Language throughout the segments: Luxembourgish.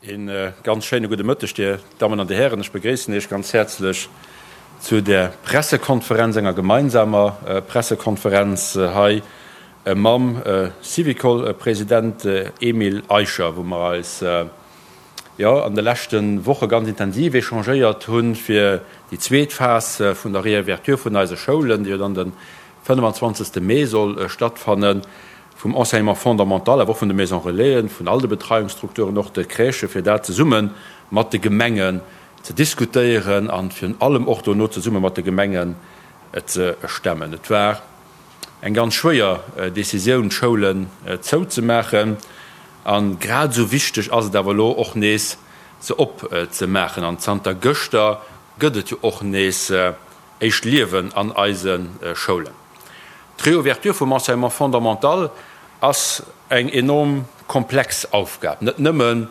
Een ganz schéine gudde Mëtteg, Dir Dammen an Dir Hären. Ech begréissen Iech ganz häerzlech zu der Pressekonferenz, enger gemeinsamer Pressekonferenz hei mam Syvicol-President Emile Eicher, wou mer eis, jo, an de leschte Woche ganz intensiv échangéiert hunn, fir déi zweet Phas vun der Réouverture vun eise Schoulen, déi jo dann de 25. Mee soll stattfannen, vum Enseignement fondamental, awer och vun de Maisons Relaisen, vun all de Betreiungsstrukturen, och de Crèchen, fir dat zesumme mat de Gemengen ze diskutéieren a virun allem och dono zesumme mat de Gemengen ze stemmen. Et war eng ganz schwéier Décisioun, d'Schoulen zouzemaachen. A grad esou wichteg ass et awer elo och nees, se opzemaachen. An zanter gëschter gëtt et jo och nees éischt Liewen an eise Schoulen. D'Reouverture vum Enseignement fondamental ass eng enorm komplex Aufgab, net nëmmen,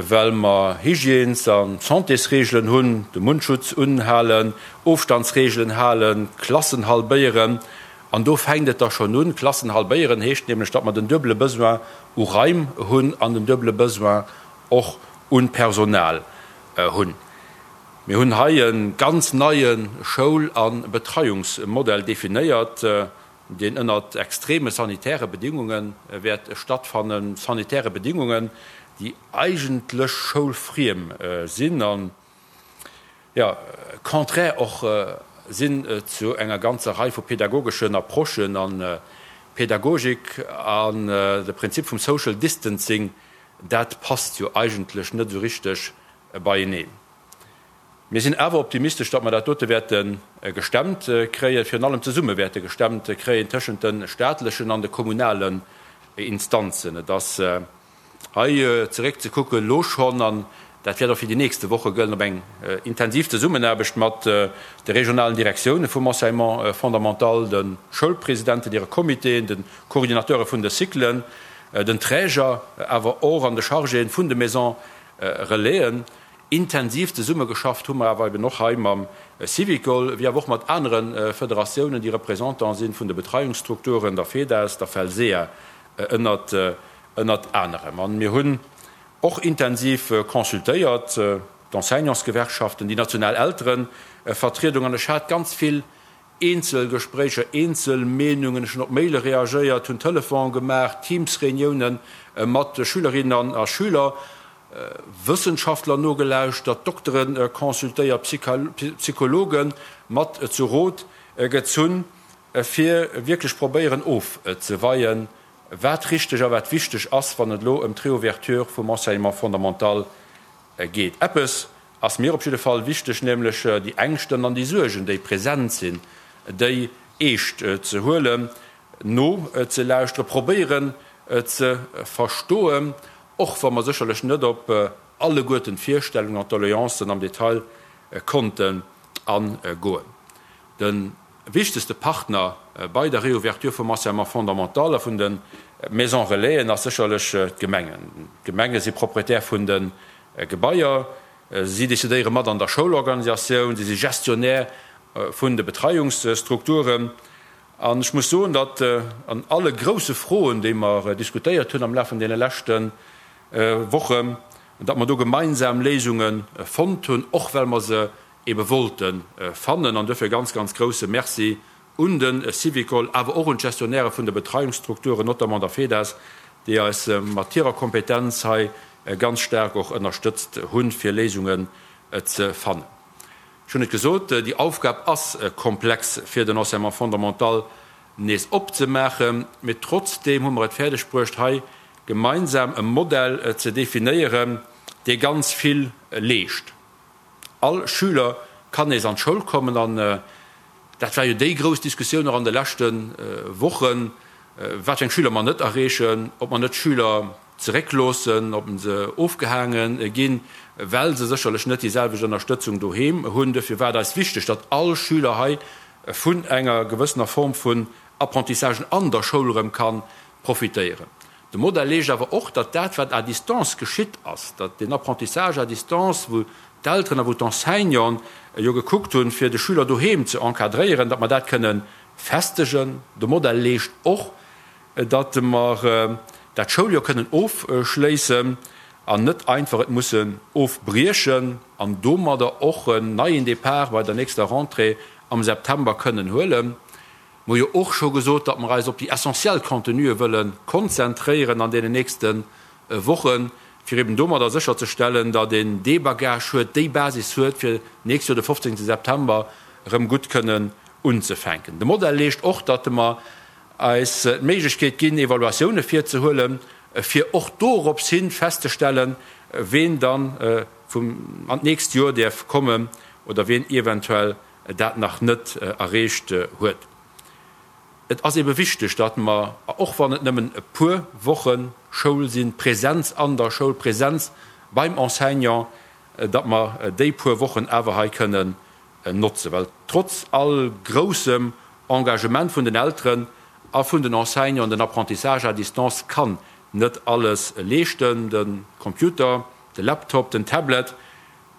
well mer Hygiènes a Santésreegelen hunn, de Mundschutz unhalen, Ofstandsreegelen halen, Klassen halbéieren. An do fänkt et da schonn un. Klassen halbéieren heescht nämlech, datt mer den duebele Besoin u Raim hunn an den duebele Besoin och u Personal hunn. Mir hunn hei e ganz neie Schoul a Betreiungsmodell definéiert, deen ënnert extreme sanitäre Bedingunge wäert stattfannen, sanitäre Bedingungen, déi eigentlech schoulfriem sinn an, jo, contraire och sinn zu enger ganzer Rei vu pedagogeschen Approchen. An Pädagogik an de Prinzip vum Social Distancing, dat passt jo eigentlech net esou richteg beieneen. Mir sinn awer optimistesch, datt mer dat dote wäerte gestemmt kréien, virun allem zesumme wäerte gestemmt kréien tëschent de staatlechen an de kommunalen Instanzen. Et ass hei zeréckzekucken elo schonn, an dat wäert och fir déi nächste Woche gëllen, op eng intensiv Zesummenaarbecht mat de regionalen Direktioune vum Enseignement fondamental, de Schoulpresidenten, hire Comitéen, de Coordinateure vun de Cyclen, den Träger, awer och an de Chargéen vun de Maisons Relaisen. Intensiv zesummegeschafft hu mer awer eben och hei mam Syvicol, wéi awer och mat anere Federatiounen, déi Représentant si vun de Betreiungsstrukturen, der FEDAS, der FELSEA ënnert ënnert anerem. An mir hunn och intensiv consultéiert, d'Enseignantsgewerkschaften, déi national Elterevertriedung. An ech hat ganz vill Eenzel Gespréicher, eenzel Meenungen, ech hunn op Maile reagéiert, hunn Telefon gemaach, Teams-Reuniounen mat Schülerinnen a Schüler, Wëssenschaftler nogelauschtert, Doktere consultéiert, Psychologe mat zu Rot gezunn, fir wierklech probéieren ofzeweien, wat richteg a wat wichteg ass, wann et elo ëm d'Reouverture vum Enseignement fondamental geet. Eppes ass mir op jidde Fall wichteg, nämlech déi Ängschten an déi Suergen, déi present sinn, déi eescht ze huelen, nozelauschteren, probéieren ze verstoen, och wa mer sécherlech net op alleguerten d'Virstellungen an d'Doleancen am Detail konnten agoen. De wichtegste Partner bei der Réouverture vum Enseignement fondamental a vun de Maisons Relaisen ass sécherlech d'Gemengen. D'Gemenge si Propriétaire vun de Gebaier, si decidéiere mat an der Schoulorganisatioun, si si Gestionnaire vun de Betreiungsstrukturen. An ech muss soen, datt an alle grousse Froen, déi mer diskutéiert hunn am Laf vun deene leschte Wochen, datt mer do gemeinsam Léisunge fonnt hunn, och well mer se ebe wollte fannen. An duerfir e ganz, ganz grouse Merci un de Syvicol, awer och un d'Gestionnairë vun de Betreiungsstrukturen, notamment der FEDAS, déi eis mat hirer Kompetenz hei ganz staark och ënnerstëtzt hunn, fir Léisungen ze fannen. Ech hunn et gesot, déi Aufgab ass komplex, fir den Enseignement fondamental nees opzemaachen, mee trotzdeem hu mer et fäerdeg bruecht, hei gemeinsam e Modell ze definéieren, dee ganz vill leescht. All Schüler kann nees an d'Schoul kommen an dat war jo déi grouss Diskussioun och an de leschte Wochen, wat fir eng Schüler mer net erreechen, ob mer net Schüler zeréckloossen, ob se ofgehaange ginn, well se sécherlech net déi selwecht Ënnerstëtzung doheem hunn. Duerfir war et eis wichteg, datt all Schüler hei vun enger gewëssener Form vun Apprentissagen an der Schoul erëm ka profitéieren. De Modell leescht awer och, datt dat, wat à distance geschitt ass, datt deen Apprentissage à distance, wou d'Elteren a wou d'Enseignanten jo gekuckt hunn, fir de Schüler doheem ze encadréieren, datt mer dat kënne festegen. De Modell leescht och, datt mer dat Schouljoer kënnen ofschléissen. an net einfach et mussen ofbriechen an domadder och en neien Départ bei der nächster Rentrée am September kënnen huelen. Mer hu jo och scho gesot, datt mer eis op déi essentiell Contenue wëlle konzentréieren an deenen nächste Wochen, fir eben domadder sécherzestellen, datt een dee Bagage huet, déi Basis huet, fir d'nächst Joer de 15 September erëm gutt kënnen unzefänken. De Modell leescht och, datt mer eis d'Méiglechkeet ginn, Evaluatioune virzehuelen, fir och dorops hin festzestellen, ween dann an d'nächst Joer däerf kommen oder ween eventuell dat nach net erreecht huet. Et ass ebe wichteg, datt mer, och wann et nëmmen e puer Woche Schoul sinn, Präsenz an der Schoul, Präsenz beim Enseignant, datt mer déi puer Wochen awer hei kënnen notzen. Well trotz all groussem Engagement vun den Elteren a vun den Enseignanten, den Apprentissage à distance kann net alles leeschten. De Computer, de Laptop, den Tablet,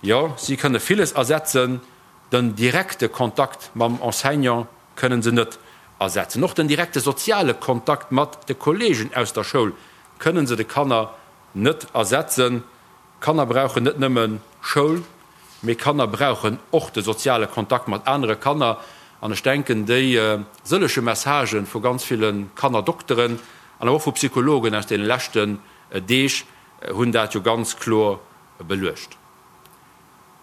jo, si kënne villes ersetzen, Den direkte Kontakt mam Enseignant kënnen se net ersetzen. Och den direkte soziale Kontakt mat de Kolleegen aus der Schoul kënnen se de Kanner net ersetzen. Kanner brauchen net nëmme Schoul, mee Kanner brauchen och de soziale Kontakt mat anere Kanner. An ech denken, déi sëllege Messagë vu ganz ville Kannerdokteren an awer och vu Psychologen aus deene leschten Deeg hunn dat jo ganz kloer beluecht.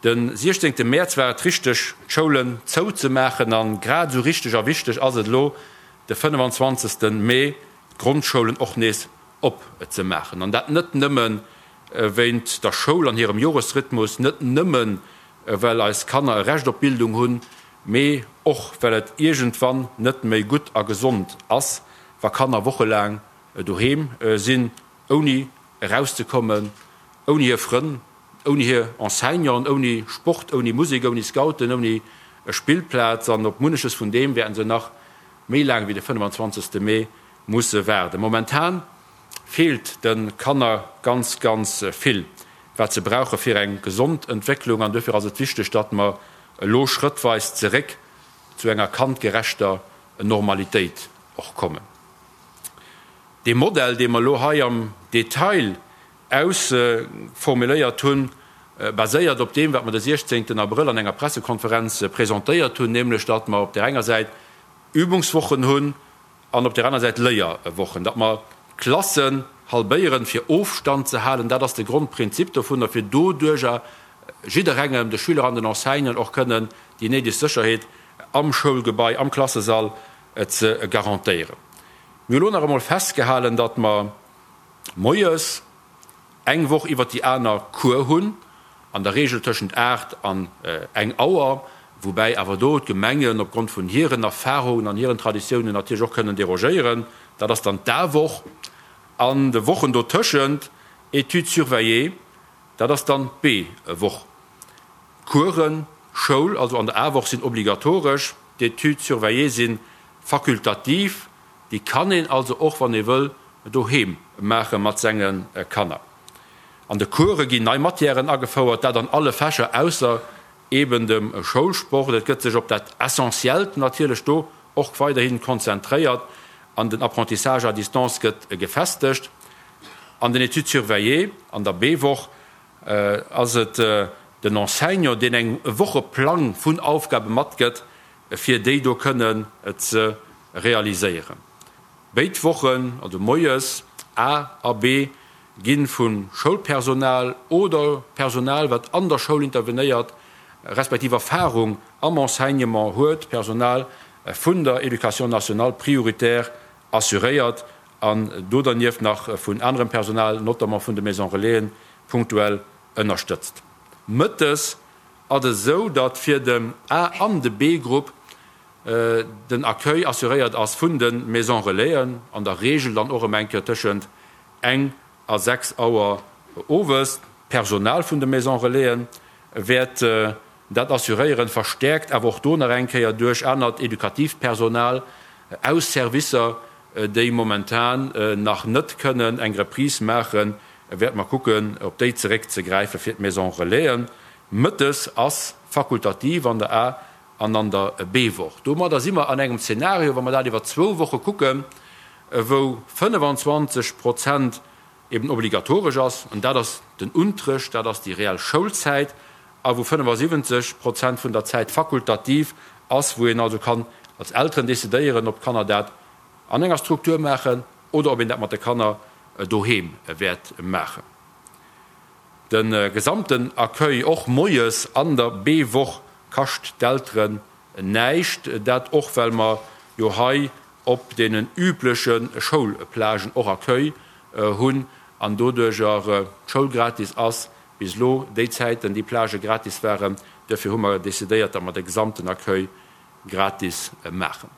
De 16 Mäerz war et richteg, d'Schoulen zou ze maachen an grad esou richteg a wichteg ass et elo, de 25 Mee d'Grondschoulen och nees op ze maachen. An dat net nëmme wéint der Schoul an hirem Joresrhythmus, net nëmme well eis Kanner e Recht op Bildung hunn, mee och well et iergendwann net méi gutt a gesond ass, wa Kanner wochelaang doheem sinn, ouni erauszekommen, ouni hir Frënn, ouni hir Enseignanten, ouni Sport, ouni Musek, ouni Scouten, ouni Spillplaz. An op munneches vun deem wäerten se nach méi laang wéi de 25. Mee musse waarden. Momentan feelt de Kanner ganz, ganz vill, wat se brauche fir eng gesond Entwécklung. An duerfir ass et wichteg, datt mer elo schrëttweis zeréck zu enger kandgerechter Normalitéit och kommen. Dee Modell, dee mer elo hei am Detail ausformuléiert hunn, baséiert op deem, wat mer de 16 Abrëll an enger Pressekonferenz presentéiert hunn, nämlech datt mer op där enger Säit Übungswochen hunn an op där aner Säit Léierwochen, datt mer d'Klassen halbéieren, fir Ofstand ze halen. Dat ass de Grondprinzip dovunner, fir doduerjer jidderengem, de Schüler an den Enseignanten, och kënnen déi néideg Sécherheet am Schoulgebai, am Klassesall ze garantéieren. Mir hu lo nach emol festgehalen, datt mer moies eng Woch iwwert déi aner Cours hunn, an der Regel tëschent 8 an eng Auer, woubäi awer do d'Gemengen opgrond vun hiren Erfahrungen an hiren Traditiounen natierlech och kënnen derogéieren. Dat ass dann d'A-Woch. An de Wochen dotëschent Études surveillées, dat ass dann d'B-Woch. D'Coursen, Schoul, also an der A-Woch sinn obligatoresch, d'Études surveillées si fakultativ, déi kann een also och, wann ee wëll, doheem maache mat senge Kanner. An de Course ginn nei Matièren agefouert, dat an alle Fächer ausser eben dem Schoulsport. Et gëtt sech op dat Essentiellt natierlech do och weiderhi konzentréiert an den Apprentissage à distance gëtt gefestegt. An den Études surveillées an der B-Woch ass et den Enseignant, deen eng e Wocheplang vun Aufgabe matgëtt, fir déi do kënnen ze realiséieren. Béid Wochen, also moies A a B, gi vu Schoulpersonal oder Personal, wat an der Schoul intervenéiert, respektiv Erfarung am Enseignement huet, Personal vun der Éducation nationale prioritär assuréiert an do dernieft nach vun anerem Personal, notamment vun de Maisons Relaisen, punktuell ënnerstëtzt. Mëttes ass et esou, datt fir den A an de B-Grupp den Accueil assuréiert ass vun de Maisons Relaisen, an der Regel dann och ëm eng Kéier tëschent eng a 6 Auer owes. D'Personal vun de Maisons Relaisen wäert dat assuréieren, verstäerkt awer och do nach eng Kéier duerch anert edukatiivt Personal aus Servicer, déi momentan nach net kënnen eng Reprise maachen, wäerte mer kucken, op déi zeréckzegräife fir d'Maisons Relaisen. Mëttes ass fakultativ an der A an an der B-Woch. Domadder si mer an engem Zeenario, wa mer dat iwwer zwou Woche kucken, wou 25 Prozent. eben obligatoresch ass, an dat ass den Unterrecht, dat ass déi reell Schoulzäit, a wou 75 Prozent vun der Zäit fakultativ ass, wou een also kann als Elteren decidéieren, ob d'Kanner dat an enger Struktur maachen oder ob een dat mat de Kanner doheem wäert maachen. De gesamten Accueil, och moies an der B-Woch, kascht d'Elteren näischt. Dat och well mer jo hei op deenen übleche Schoulplagen och Accueil hunn an doduercher d'Schoul gratis ass. Bis elo déi Zäiten déi Plagë gratis waren. Duerfir hu mer decidéiert, datt mer de gesamten Accueil gratis maachen.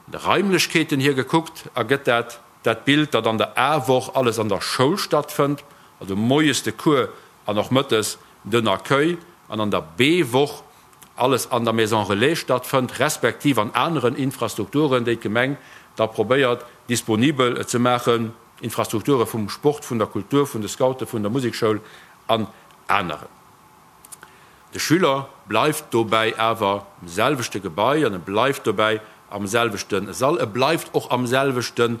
De Raimlechkeeten hier gekuckt ergëtt dat dat Bild, datt an der A-Woch alles an der Schoul stattfënnt, also moies de Cours an och mëttes den Accueil, an an der B-Woch alles an der Maison Relais stattfënnt, respektiv an aneren Infrastrukturen, déi d'Gemeng da probéiert disponibel ze maachen, Infrastrukture vum Sport, vun der Kultur, vun de Scouten, vun der Musekschoul an aneren. De Schüler bleift dobäi awer am selwechte Gebai an e bleift dobäi am selwechte Sall. E bleift och am selwechte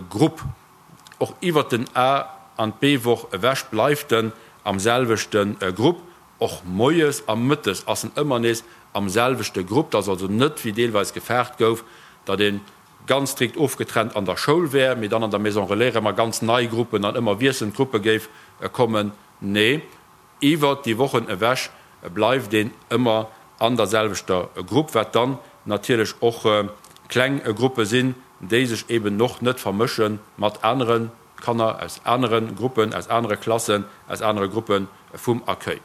Grupp. Och iwwert den A an d'B-Woch ewech bleift en am selwechte Grupp. Och moies a mëttes ass en ëmmer nees am selwechte Grupp. Et ass also net, wéi deelweis gefaart gouf, datt ee ganz strikt ofgetrennt an der Schoul wär, mee dann an der Maison Relais erëm a ganz nei Gruppen an ëmmer wiesselnd Gruppe géif kommen. Nee. Iwwert déi Wochen ewech bleift een ëmmer an der selwechter Grupp, wat dann natierlech och kleng Gruppe sinn, déi sech eben och net vermësche mat anere Kanner aus anere Gruppen, aus anere Klassen, aus anere Gruppe vum Accueil.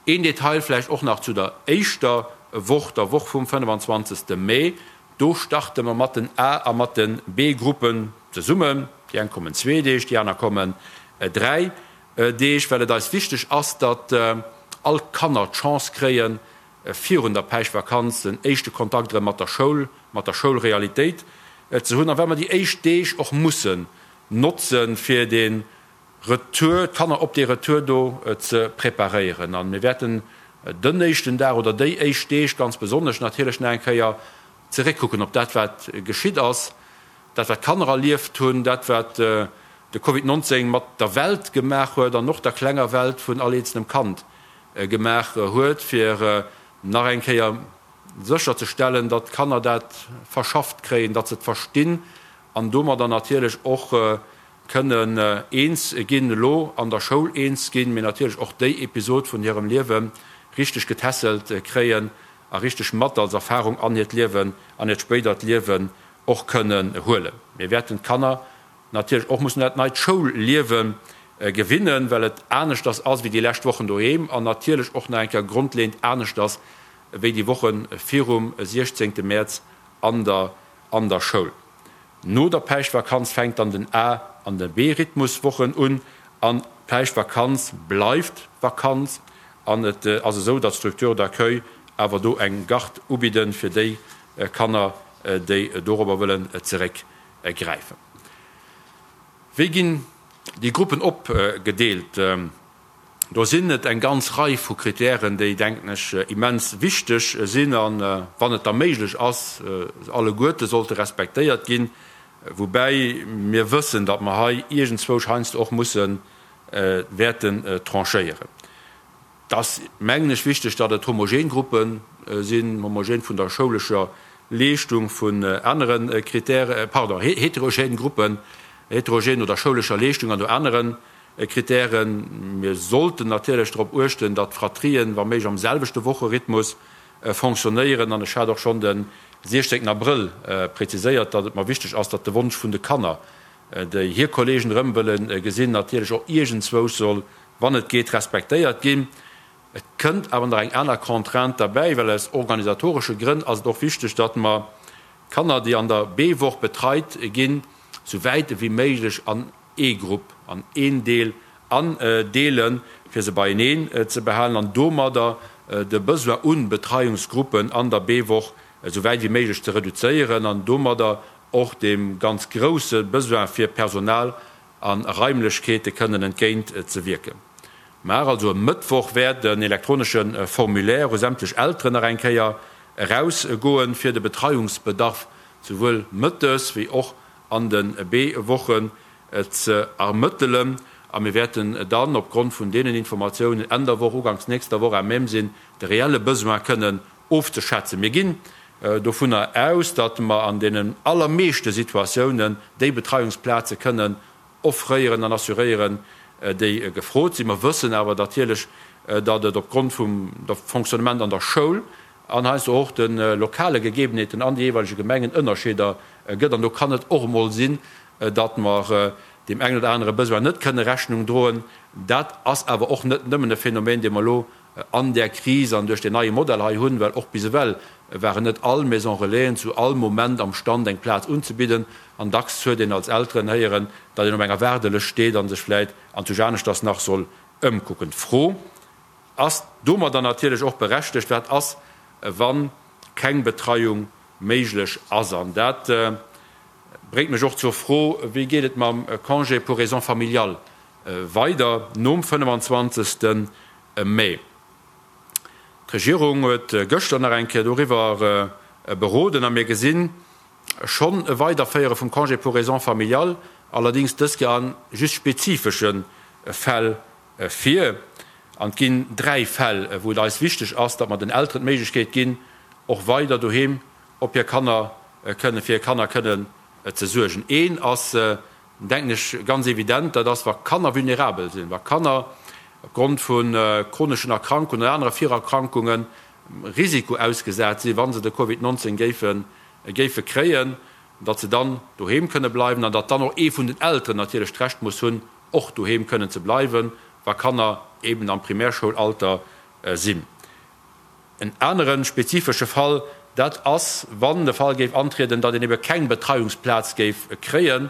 Een Detail vläicht och nach zu der éischter Woch, der Woch vum 25. Mee, Do starte mer mat den A a mat de B-Gruppen zesummen. Déi eng kommen zwee Deeg, déi aner kommen dräi Deeg, well et eis wichteg ass, datt all d'Kanner d'Chance kréien, virun der Päischtvakanz den éischte Kontakt erëm mat der Schoul, mat der Schoulrealitéit ze hunn a well mer déi éischt Deeg och mussen notzen, fir de Retour, d'Kanner op dee Retour do ze preparéieren. A mir wäerten den éischten Dag oder déi éischt Deeg ganz besonnesch natierlech nach eng Kéier zeréckkucken op dat, wat geschitt ass, Dat wat d'Kanner erlieft hunn, dat wat de Covid 19 mat der Welt gemaach huet an och der klenger Welt vun all eenzelnem Kand gemaach huet, fir nach eng Kéier sécher ze stellen, datt d'Kanner dat verschafft kréien, datt se et verstinn an domadder natierlech och kënnen eens ginn, elo an der Schoul eens ginn, mee natierlech och déi Episod vun hirem Liewe richteg getässelt kréien a richteg mat als Erfahrung an hiert Liewen, an hiert spéidert Liewen och kënnen huelen. Mir wäerten d'Kanner natierlech och mussen un dat neit Schoulliewe gewinnen, well et aneschters ass wéi déi lescht Wochen doheem an natierlech och nach eng Kéier grondleeënd aneschters wéi déi Woche virum 16 Mäerz an der an der Schoul. No der Päischtvakanz fänkt dann den A an de B-Rhythmuswochen un an d'Päischtvakanz bleift Vakanz an et ass esou, datt d'Structures d'accueil awer do eng Garde ubidden fir déi Kanner, déi dorobber wëllen zeréckgräifen. Wéi ginn déi Gruppen opgedeelt? Do sinn et eng ganz Rei vu Kritären, déi, denken ech, immens wichteg sinn an, wann et da méiglech ass, alleguerte sollte respektéiert ginn. Woubäi mir wëssen, datt mer hei iergendzwousch heiansdo och musse wäerten tranchéieren. Et ass, mengen ech, wichteg, datt et homogen Gruppe sinn, homogen vun der schoulescher Leeschtung, vun anere Kritären, pardon, heterogen Gruppen, heterogen no der schoulescher Leeschtung an no anere Kritären. Mir sollten natierlech drop uechten, datt d'Fratrien, wa méiglech, am selwechte Wocherhythmus fonctionnéieren. An ech hat och schonn de 16 Abrëll preziséiert, datt et mer wichteg ass, datt de Wonsch vun de Kanner, déi hir Kollegen erëm wëlle gesinn, natierlech och iergendzwousch soll wann et geet, respektéiert ginn. Et kënnt awer nach eng aner Contrainte derbäi, well aus organisatoresche Grënn ass et och wichteg, datt mer d'Kanner, déi an der B-Woch betreit ginn, sou wäit ewéi méiglech an ee Grupp, an een Deel andeelen, fir se beieneen ze behalen an domadder de Besoin u Betreiungsgruppen an der B-Woch esou wäit ewéi méiglech ze reduzéieren an domadder och deem ganz grousse Besoin fir Personal a Raimlechkeete kënnen entgéint ze wierken. Mar also e Mëttwoch wäert en elektronesche Formulaire u sämtlech Elteren nach eng Kéier eraus goen, fir de Betreiungsbedarf souwuel mëttes wéi och an de B-Woche. ze ermëttelen. A mir wäerten dann opgrond vun deenen Informatiounen Enn der Woch, uganks nächster Woch à même sinn, de reelle Besoin kënnen ofzeschätzen. Mir ginn dovunner aus, datt mer an deenen allermeeschte Situatiounen déi Betreiungsplaze kënnen offréieren an assuréieren, déi gefrot sinn. Mer wëssen awer natierlech, datt et opgrond vum Fonctionnement an der Schoul an heiansdo och de lokale Gegebenheeten an de jeeweilege Gemengen Ënnerscheeder gëtt. An do kann et och emol sinn, datt mer deem engen oder anere Besoin net kënne Rechnung droen. Dat ass awer och net nëmmen e Phänomen, dee mer elo an där Kris an duerch deen neie Modell hei hunn, well och bis ewell waren net all Maison Relaisen zu all Moment am Stand eng Plaz unzebidden an dacks huet een als Elteren héieren, datt een op enger Waardelëscht steet a sech vläit anzwousch aneschters nach soll ëmkucken. D'Fro ass domadder natierlech och berechtegt, Wat ass, wa keng Betreiung méiglech ass? An dat bréngt mech och zur Fro, Wéi geet et mam Congé pour raisons familiales weider nom 25. Mee? D'Regierung huet gëschter nach eng Kéier doriwwer beroden a mir gesinn schonn e Weiderféiere vum Congé pour raisons familiales, allerdéngs dës Kéier a just spezifesche Fäll vir. An et ginn dräi Fäll, wou et eis wichteg ass, datt mer den Elteren d'Méiglechkeet ginn, och weider doheem op hir Kanner kënnen, fir hir Kanner kënnen ze suergen. Een ass, denken ech, ganz evident, dat ass, wa Kanner vulnerabel sinn, wa Kanner opgrond vu chroneschen Erkrankungen oder anere Virerkrankunge Risiko ausgesat sinn, wa se de Covid 19 géife géife kréien, datt se dann doheem kënne bleiwen an datt dann och ee vun den Elteren natierlech d'Recht muss hunn, och doheem kënnen ze bleiwen, wa Kanner eben am Primärschoul-Alter sinn. En anere spezifesche Fall, dat ass, wann de Fall géif antrieden, datt een ebe keng Betreiungsplaz géif kréien.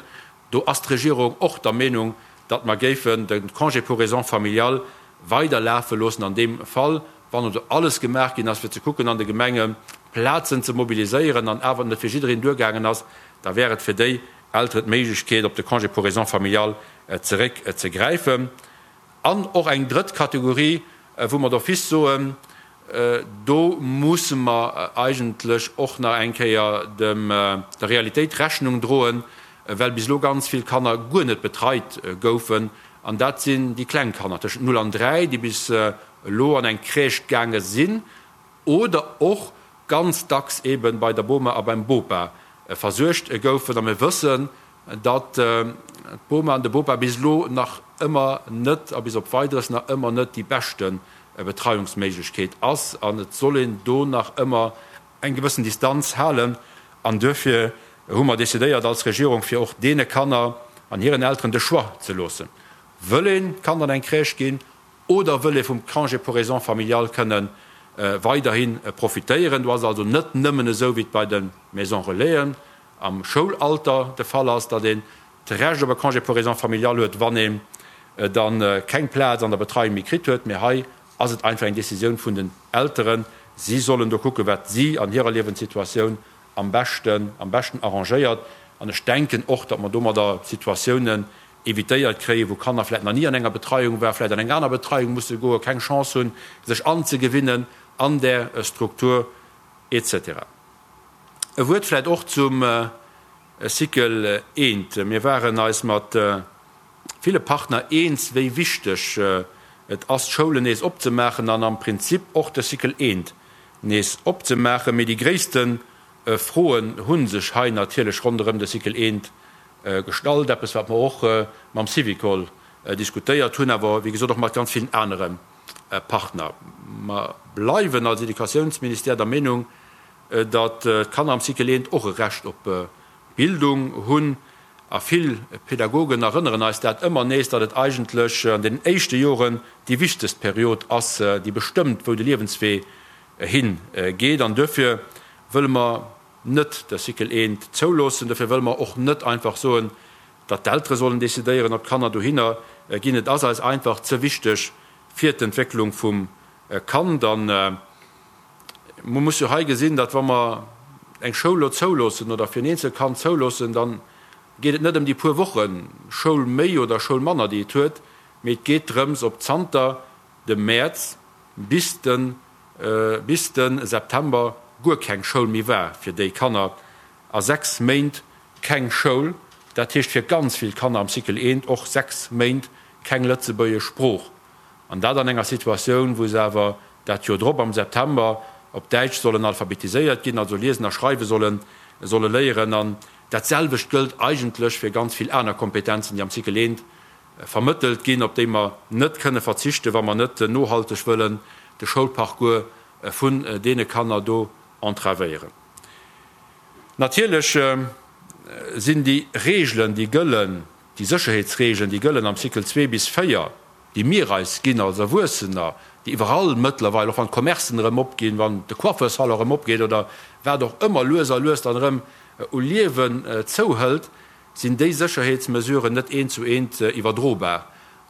Do ass d'Regierung och der Meenung, datt mer géifen de Congé pour raisons familiales weider lafe loossen an deem Fall, wann also alles gemaach ginn ass, fir ze kucken an de Gemenge Plazen ze mobiliséieren an awer et net fir jiddereen duergaangen ass, da wär et fir déi Elteren d'Méiglechkeet, op de Congé pour raisons familiales zeréckzegräifen. An och eng drëtt Kategorie, wou mer d'office soen, do musse mer eigentlech och nach eng Kéier dem der Realitéit Rechnung droen, well bis elo ganz vill Kanner guer net betreit goufen. An dat sinn déi kleng Kanner tëschent 0 an 3, déi bis elo an eng Crèche gaange sinn oder och ganz dacks eebe bei der Boma a beim Bopa versuergt goufen. A mir wëssen, datt d'Boma an de Bopa bis elo nach ëmmer net a bis op Weideres nach ëmmer net déi beschte Betreiungsméiglechkeet ass an et soll een do nach ëmmer eng gewëssen Distanz halen. An duerfir hu mer decidéiert als Regierung, fir och deene Kanner an hiren Elteren de Choix ze loossen, Wëll een d'Kand an eng Crèche ginn oder wëll ee vum Congé pour raisons familiales kënne weiderhi profitéieren? Do ass et also net nëmmen esou, wéi et bei de Maisons Relaisen am Schoulalter de Fall ass, datt een d'Recht op e Congé pour raisons familiales huet, wann een da keng Plaz an der Betreiung méi kritt huet, mee hei ass et einfach eng Décisioun vun den Elteren. Si sollen do kucken, wat si an hirer Liewenssituatioun am beschten, am beschten arrangéiert. An ech denken och, datt mer domadder Situatiounen évitéiert kréien, wou Kanner vläicht nach ni an enger Betreiung waren, vläicht an eng aner Betreiung musse goen, keng Chance hunn, sech anzegewinnen an där Struktur et cetera. E Wuert vläicht och zum Cycle I. Mir waren eis mat ville Partner eens, wéi wichteg et ass, d'Schoulen nees opzemaachen an am Prinzip och de Cycle I nees opzemaachen. Mee déi gréisste Froen hu sech hei natierlech ronderëm de Cycle I gestallt, eppes wat mer och mam Syvicol diskutéiert hunn, awer wéi gesot och mat ganz villen anere Partner. Mer bleiwen als Educatiounsministère der Meenung, datt d'Kanner am Cycle I och e Recht op Bildung hunn. A vill Pädagogen erënneren eis dat ëmmer nees, datt et eigentlech an den éischte Joren déi wichtegst Period ass, déi bestëmmt, wou de Liewenswee hi geet. An duerfir wëlle mer net de Cycle I zouloossen. Duerfir wëlle mer och net einfach soen, datt d'Eltere sollen decidéieren, ob d'Kanner dohinner ginn. Et ass eis einfach ze wichteg fir d'Entwécklung vum Kand. An Mer muss jo hei gesinn, datt wa mer eng Schoul elo zouloossen oder fir en eenzelt Kand zouloossen, da geet et net ëm déi puer Woche Schoul méi oder Schoul manner, déi et huet, mee et geet drëms, ob zanter dem Mäerz bis de bis de September guer keng Schoul méi war fir déi Kanner a 6 Méint keng Schoul. Dat heescht fir ganz vill Kanner am Cycle eent och 6 Méint keng lëtzebuergesch Sprooch. An dat an enger Situatioun, wou se awer dat Joer drop am September op Däitsch sollen alphabetiséiert ginn, also liesen a schreiwe solle solle léieren. An dat selwecht gëllt eigentlech fir ganz vill aner Kompetenzen, déi am Cycle eent vermëttelt ginn, op déi mer net kënne verzichten, wa mer net nohalteg wëllen de Schoulparcours vun deene Kanner do entravéieren. Natierlech sinn déi Regeln, déi gëllen, déi Sécherheetsregeln, déi gëllen am Cycle 2 bis 4, déi mir eis ginn als Erwuessener, déi iwwerall mëttlerweil, och wann d'Commercen erëm opginn, wann de Coiffeursalon erëm opgeet oder wat och ëmmer, lues a lues dann erëm u Liewen zouhëlt, sinn déi Sécherheetsmesuren net eent zu eent iwwerdrobar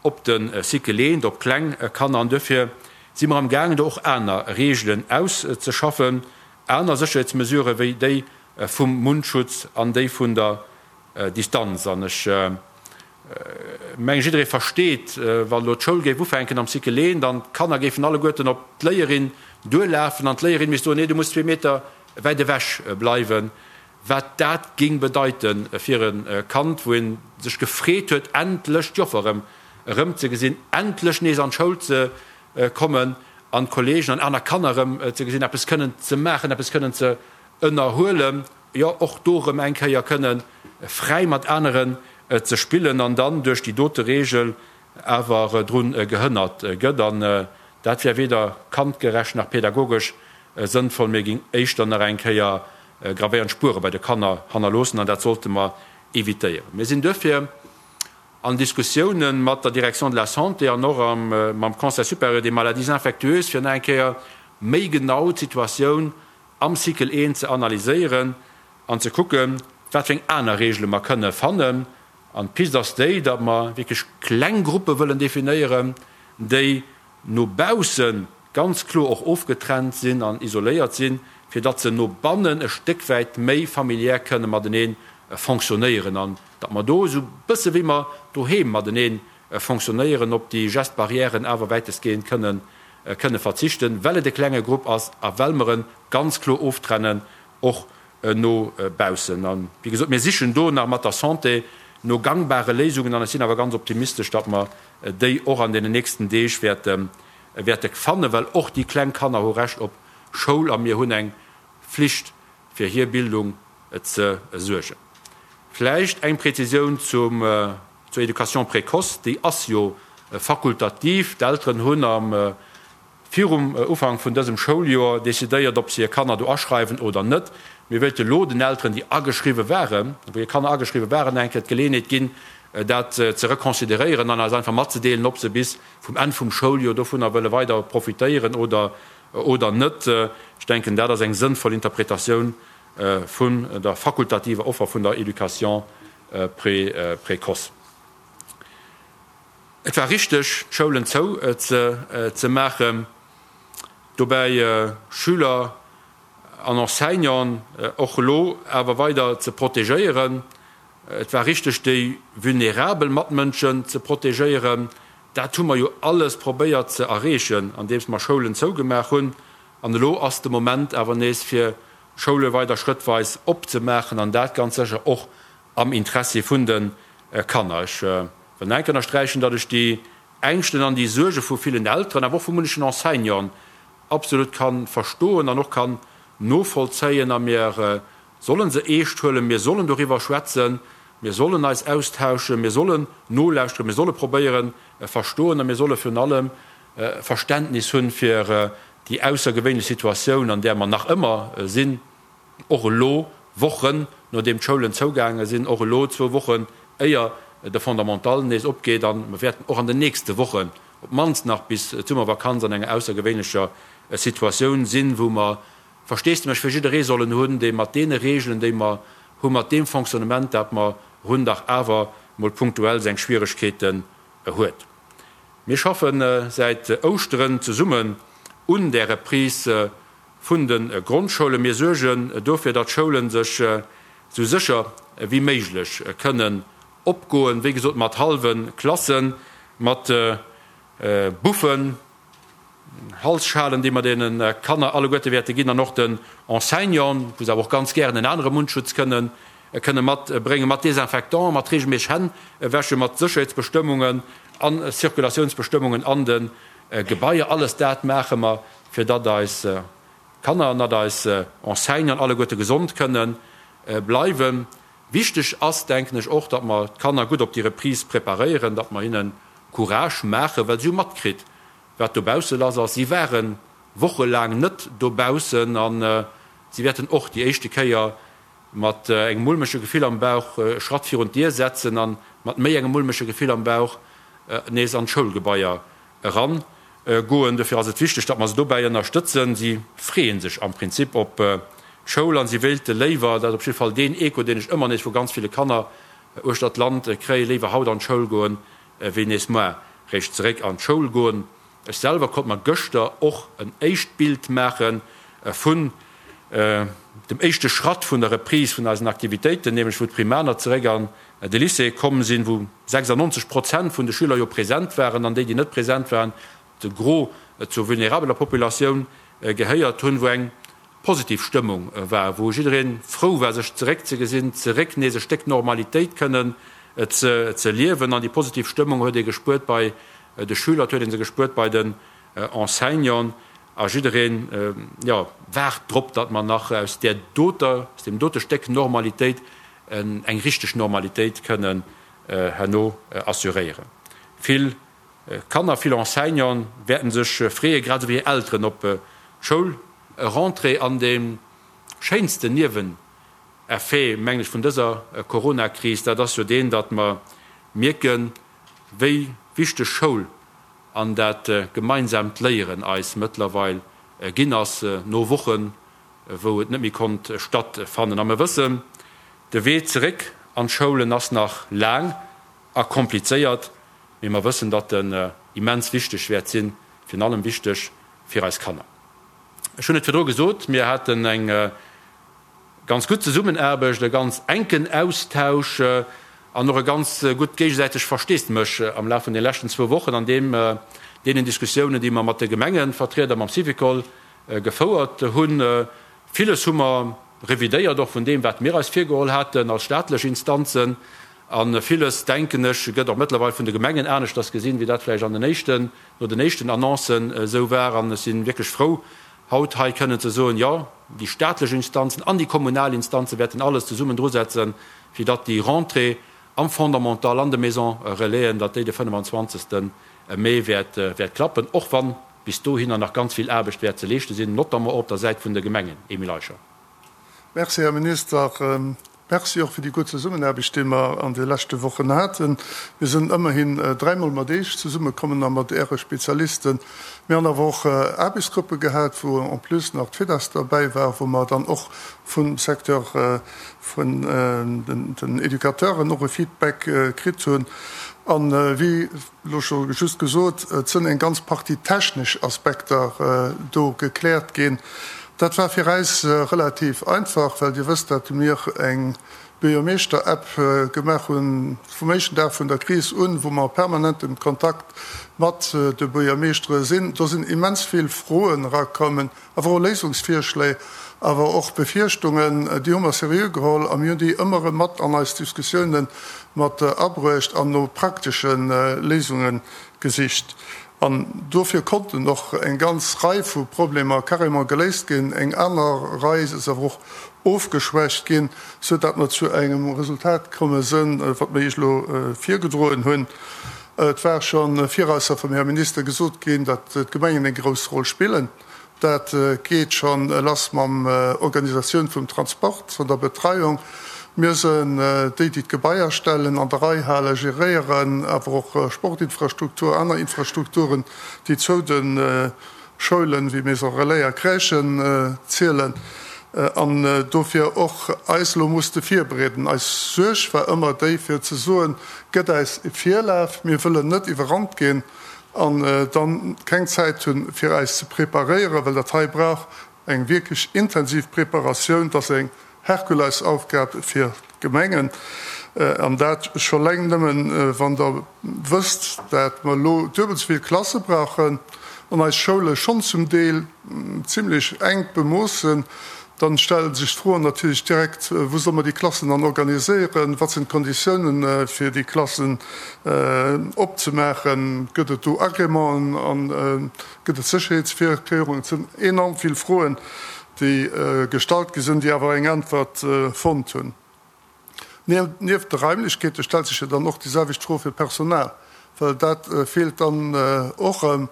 op de Cycle eent, op kleng Kanner. An duerfir si mer amgaangen, do och aner Regeln auszeschaffen, aner Sécherheetsmesurë wéi déi vum Mundschutz an déi vun der Distanz. An ech mengen, jidderee versteet, wann elo d'Schoul géif ufänken am Cycle eent an d'Kanner géifen alleguerten op d'Léierin duerlafen an d'Léierin misst soen, Nee, du muss zwee Meter wäit ewech bleiwen, wat dat géing bedeite fir e Kand, wou ee sech gefreet huet, endlech d'Joffer erëm erëmzegesinn, endlech nees an d'Schoul ze kommen an d'Kolleegen an aner Kanner erëm ze gesinn, eppes kënnen ze maachen, eppes kënnen ze ënnerhuelen, jo och do erëm eng Kéier kënne fräi mat aneren ze spillen an dann duerch déi dote Reegel awer drun gehënnert gëtt. An dat wär weder kandgerecht nach pädagogesch sënnvoll, mee géing éischter nach eng Kéier gravéierend Spuere bei de Kanner hannerloossen an dat sollte mer évitéieren. Mir sinn duerfir an Diskussiounen mat der Direction de la Santé an och mam Conseil supérieur des maladies infectieuses, fir nach eng Kéier méi genau d'Situatioun am Cycle I ze analyséieren an ze kucken, wat fir eng aner Regele mer kënne fannen. An d'Pist ass déi, datt mer wierklech kleng Gruppe wëllen definéieren, déi no bausse ganz kloer och ofgetrennt sinn an isoléiert sinn, fir datt se no bannen e Stéck wäit méi familiär kënne matenee fonctionnéieren an datt mer do esou bësse wéi mer doheem matenee fonctionnéieren, op déi Gestes barrièren awer wäitestgehend kënne kënne verzichten, well et e klenge Grupp ass a well mer e ganz kloer oftrennen och no baussen. A wéi gesot, mir sichen do nach mat der Santé no gangbare Léisungen an ech sinn awer ganz optimistesch, datt mer déi och an deenen nächsten Deeg wäerte wäerte fannen, well och déi kleng Kanner hu Recht op Schoul a mir hunn eng Flicht fir hir Bildung ze suergen. Vläicht eng Präzisioun zum, zur Éducation précoce, déi ass jo fakultativ. D'Elteren hunn am virum Ufank vun dësem Schouljoer decidéiert, ob se hir Kanner do aschreiwen oder net. Mir wéilte lo den Elteren, déi ageschriwwe waren, wou hir Kanner ageschriwwe waren, eng Kéier d'Geleeënheet ginn, dat ze reconsideréieren an eis einfach matzedeelen, ob se bis vum Enn vum Schouljoer dovunner wëlle weider profitéieren oder oder net. Ech denken, dat ass eng sënnvoll Interpretatioun vun der fakultativer Offer vun der Éducation précoce. Et war richteg, d'Schoulen zou ze maachen, dobäi Schüler an Enseignanten och elo awer weider ze protegéieren. Et war richteg, déi vulnerabel Matmënschen ze protegéieren. Dat hu mer jo alles probéiert ze erreechen, andeems mer Schoulen zougemaach hunn. An elo ass de Moment awer nees, fir Schoule weider schrëttweis opzemaachen, an dat ganz sécher och am Interessi vun de Kanner. Ech wëll nach eng Kéier ënnersträichen, datt ech déi Ängschten an déi Suerge vu villen Elteren, awer och vu munnechen Enseignanten absolut ka verstoen an och kann novollzéien. A mir sollen se eescht huelen, mir sollen doriwwer schwätzen, mir sollen eis austauschen, mir sollen nolauschteren, mir solle probéieren verstoen a mir solle virun allem Verständnis hunn fir déi aussergewéinlech Situatioun, an där mer nach ëmmer sinn. Och elo, Wochen nodeem d'Schoulen zougaange sinn, och elo, zwou Wochen éier de Fondamental nees opgeet, a mer wäerten och an den nächste Wochen, op d'mannst nach bis d'Summervakanz, an enger aussergewéinlecher Situatioun sinn, wou mer Versteesdemech fir jidderee sollen hunn, dee mat deene Regeln, déi mer hunn, mat deem Fonctionnement, dat mer hunn, dach awer mol punktuell seng Schwieregkeeten huet. Mir schaffe säit Ouschteren zesummen un där Reprise vun de Grondschoulen. Mir suergen dofir, datt d'Schoulen sech esou sécher wéi méiglech kënnen opgoen, wéi gesot mat hallwe Klassen, mat Buffen, Halsschalen, déi mer deene Kanner alleguerte wäerte ginn an och den Enseignanten, wou se awer och ganz gären en anere Mundschutz kënnen. kënne matbréngen, mat Desinfectant, mat reegelméisseg Hänn wäschen, mat Sécherheetsbestëmmungen a Circulatiounsbestëmmungen an de Gebaier. Alles dat maache mer, fir datt eis Kanner an datt eis Enseignanten alleguerte gesond kënne bleiwen. Wichteg ass, denken ech, och, datt mer d'Kanner gutt op déi Reprise preparéieren, datt mer hinne Courage maachen, well si hu matkritt, wat dobausse lass ass. Si ware wochelaang net dobaussen a si wäerten och déi éischte Kéier mat engem mulmege Gefill am Bauch e Schratt virun d'Dier setzen a mat méi engem mulmege Gefill am Bauch nees an d'Schoulgebaier eran goen. Dofir ass et wichteg, datt mer se dobäi ënnerstëtzen. Si freeë sech am Prinzip op d'Schoul a si wéilte léiwer, dat ass op jidde Fall deen Echo, deen ech ëmmer nees vu ganz ville Kanner uechter d'Land kréien, léiwer haut an d'Schoul goen, wéi nees muar réischt zeréck an d'Schoul goen. Ech selwer konnt mer gëschter och en éischt Bild maache vun dem éischte Schratt vun der Reprise vun eisen Aktivitéiten, nämlech wou d'Primaner zeréck an de Lycée komm sinn, wou 96 Prozent vun de Schüler jo present waren an déi, déi net present waren, de Gros zur vulnerabeler Populatioun gehéiert hunn, wou eng positiv Stëmmung war, wou jidderee frou war, sech zeréckzegesinn, zeréck nees e Stéck Normalitéit kënnen ze liewen. An déi positiv Stëmmung huet ee gespuert bei de Schüler, et huet ee se gespuert bei den Enseignanten a jiddereen, jo, waart drop, datt mer nach aus där doter, aus deem dote Stéck Normalitéit eng richteg Normalitéit kënnen herno assuréieren. Vill Kanner, vill Enseignanten wäerten sech freeën, grad esou wéi hir Elteren, op d'Schoulrentrée. An dee schéinsten Nieweneffet, mengen ech, vun dëser Coronakris, dat ass jo deen, datt mer mierken, wéi wichteg Schoul an dat gemeinsaamt Léieren eis mëttlerweil ginn ass, no Wochen, wou et net méi konnt stattfannen. A mer wëssen, de Wee zeréck an d'Schoulen ass nach laang a komplizéiert, mee mer wëssen, datt en immens wichteg wäert sinn, virun allem wichteg fir eis Kanner. Ech hunn et virdru gesot, mir haten eng ganz gutt Zesummenaarbecht, e ganz enken Austausch an och e ganz gutt géigesäiteg Versteesdemech am Laf vun de leschten zwou Wochen an deem deenen Diskussiounen, déi mer mat de Gemengevertrieder, mam Syvicol gefouert hunn. Villes hu mer revidéiert, och vun deem, wat mir eis virgeholl haten als staatlech Instanzen. A villes, denken ech, gëtt och mëttlerweil vun de Gemengen aneschters gesinn, wéi dat vläicht an den éischten, no den éischten Annoncen esou war. An ech si wierklech frou, haut hei kënnen ze soen, Jo, déi staatlech Instanzen an déi kommunal Instanze wäerten alles zesummen drusetzen, fir datt déi Rentrée am Fondamental, an de Maisons Relaisen, datt déi de 25. Mee wäert klappen, och wann bis dohinner nach ganz vill Aarbecht wäert ze leeschte sinn, notamment och op der Säit vun de Gemengen. Emile Eicher. Merci, Här Minister. Merci och fir déi gutt Zesummenaarbecht, déi mer an de leschte Wochen haten. Mir sinn ëmmerhin dräimol mat Iech zesummekommen a mat Äre Spezialisten. Mir hunn awer och Aarbechtsgruppe gehat, wou en plus nach d'FIDAS derbäi war, wou mer dann och vum Secteur vun den Educateuren och e Feedback kritt hunn. A wéi elo scho just gesot, et sënn eng ganz Partie technesch Aspekter do gekläert ginn. Dat war fir äis relativ einfach, well Dir wësst, dat mir eng Buergermeeschter-App gemaach hunn vum éischten Dag vun der Kris un, wou mer permanent am Kontakt mat de Buergermeeschtere sinn. Do sinn immens vill Froen erakommen, awer och Léisungsvirschléi, awer och Befierchtungen. Déi hu mer seriö geholl a mir hunn déi ëmmer erëm mat an eis Diskussiounen mat abruecht an no praktesche Léisunge gesicht. An dofir konnten och eng ganz Rei vu Problemer carrément geléist ginn, eng aner Rei ass awer och ofgeschwächt ginn, sou dat mer zu engem Resultat komme sënn, wat mer Iech elo virgedroen hunn. Et war scho virausser vum Här Minister gesot ginn, datt d'Gemengen eng grouss Roll spillen. Dat geet scho lass mam Organisatioun vum Transport, vun der Betreiung. Mir sënn déi, déi d'Gebaier stellen, an der Rei halen, geréieren, awer och Sportinfrastruktur, aner Infrastrukturen, déi zou de Schoulen, wéi Maison Relais a Crèchen zielen an dofir och eis elo musste virbereeden. Eis Suerg war ëmmer déi, fir ze soen, Gëtt äis e Virlaf, mir wëllen net iwwerrannt ginn an dann keng Zäit hunn, fir äis ze preparéieren, well dat hei brauch eng wierklech intensiv Preparatioun. Dat ass eng Herkulesaufgab fir d'Gemengen, an dat scho leng nëmmen, wann Der wësst, dat mer elo duebel esou vill Klasse brauchen an eis Schoule schonn zum Deel zimlech enk bemooss sinn. Dann stelle sech d'Froen natierlech direkt, Wou solle mer déi Klassen dann organiséieren? Wat sinn d'Konditiounen, fir déi Klassen opzemaachen? Gëtt et do Agrémenten an gëtt et Sécherheetsvirkéierungen? Et sinn enorm vill Froen, déi gestallt gi sinn, déi awer eng Äntwert fonnt hunn. Nieft de Raimlechkeete stellt sech jo dann och déi selwecht Fro fir d'Personal, well dat feelt dann och erëm.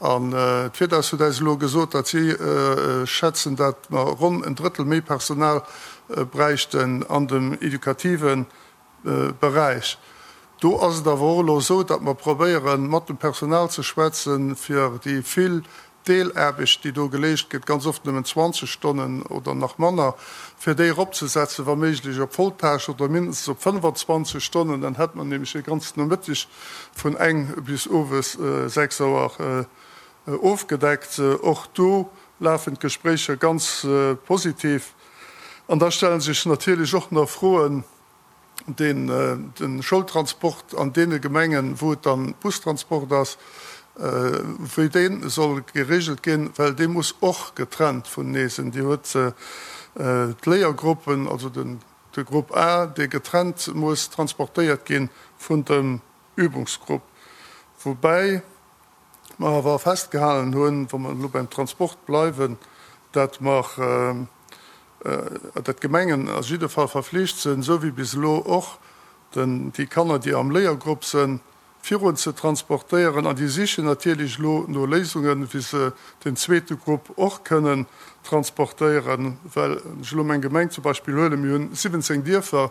An d'Virdaus huet äis elo gesot, datt si schätzen, datt mer ronn en Drëttel méi Personal bräichten an dem educative Beräich. Do ass et awer och elo esou, datt mer probéieren, mat dem Personal ze schwätzen, fir déi vill Deelaarbecht, déi do geleescht gëtt, ganz oft nëmmen 20 Stonnen oder nach manner, fir déi eropzesetzen, wa méiglech op Volltâche oder mindestens op 25 Stonnen, dann hätt mer nämlech e ganzen Nomëtteg vun eng bis owes 6 Auer ofgedeckt. Och do lafen d'Gespréicher ganz positiv. An da stelle sech natierlech och nach Froen, deen de Schoultransport an deene Gemengen, wou et dann Bustransport ass, wéi dee soll geregelt ginn, well dee muss och getrennt vunenee sinn. Dir huet d'Léiergruppen, also de Grupp A, dee getrennt muss transportéiert gi vun dem Übungsgrupp, woubäi mer awer festgehalen hunn, wa mer elo beim Transport bleiwen, dat mer, dat d'Gemengen a jidde Fall verflicht sinn, esou wéi bis elo och, den, déi Kanner, déi am Léiergrupp sinn, virun ze transportéieren. An déi sichen natierlech elo no Léisungen, wéi se den zweete Grupp och kënnen transportéieren. Well, wann ech elo meng Gemeng zum Beispill huelen, mir hunn 17 Dierfer,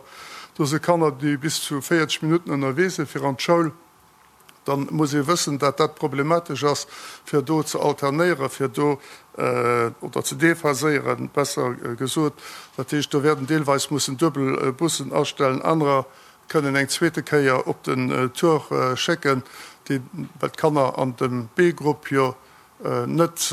do si Kanner, déi bis zu 40 Minutten ënnerwee sinn fir an d'Schoul. Dann muss ee wëssen, dat dat problematesch ass, fir do ze alternéieren, fir do, oder ze déphaséieren, besser gesot. Dat heescht, do wäerten deelweis mussen duebel Bussen astellen, anerer kënnen eng zweete Kéier op den Tour schécken, déi, well d'Kanner an dem B-Grupp jo net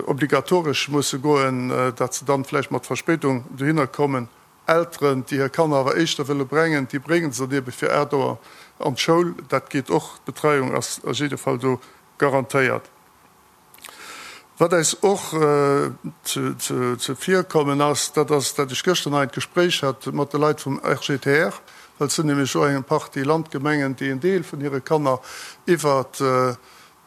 obligatoresch musse goen, dat se dann vläicht mat Verspéidung dohinner kommen. Elteren, déi hir Kanner awer éischter wëlle brengen, déi bréngen se dann ebe fir 8 Auer an d'Schoul. Dat geet och. D'Betreiung ass a jidde Fall do garantéiert. Wat äis och zevirkommen ass, dat ass, dat ech gëschter nach en Gespréich hat mat de Leit vum RGTR, well et sinn nämlech och eng Partie Landgemengen, déi en Deel vun hire Kanner iwwert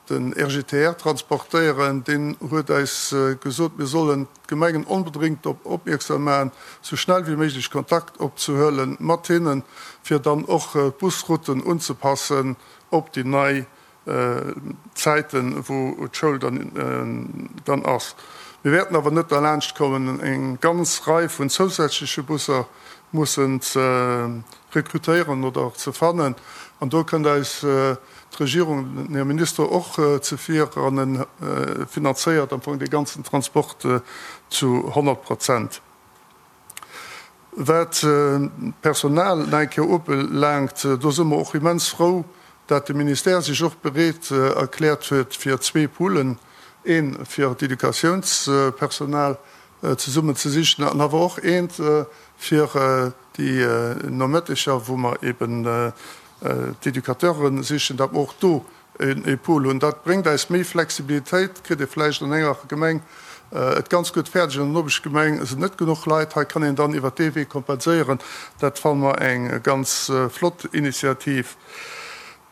Den RGTR transportéieren, deen huet äis gesot, mir sollen d'Gemengen onbedréngt drop opmierksam maachen, sou schnell wéi méiglech Kontakt opzehuele mat hinnen, fir dann och d'Busrouten unzepassen op déi nei Zäiten, wou d'Schoul dann ass. Mir wäerten awer net derlaanscht kommen, eng ganz Rei vun zousätzleche Busser mussen ze rekrutéieren oder ze fannen. An do kënnt eis d'Regierung, den Här Minister och zevir an e finanzéiert am Fong dee ganzen Transport zu 100 Prozent. Wat d'Personal nach eng Kéier ubelaangt, do si mer och immens frou, dat de Ministère sech och bereet erkläert huet, fir zwee Poolen, ee fir d'Educatiounspersonal zesummen ze sichen an awer och eent fir déi Nomëtteger, wou mer eben d'Educateure sichen, datt mer och do e Pool hunn. Dat bréngt eis méi Flexibilitéit. Kritt ee vläicht an enger Gemeng et ganz gutt fäerdeg, an der Nopeschgemeng sinn net genuch Leit. Hei kann een dann iwwert dee Wee kompenséieren. Dat fanne mer eng ganz flott Initiativ.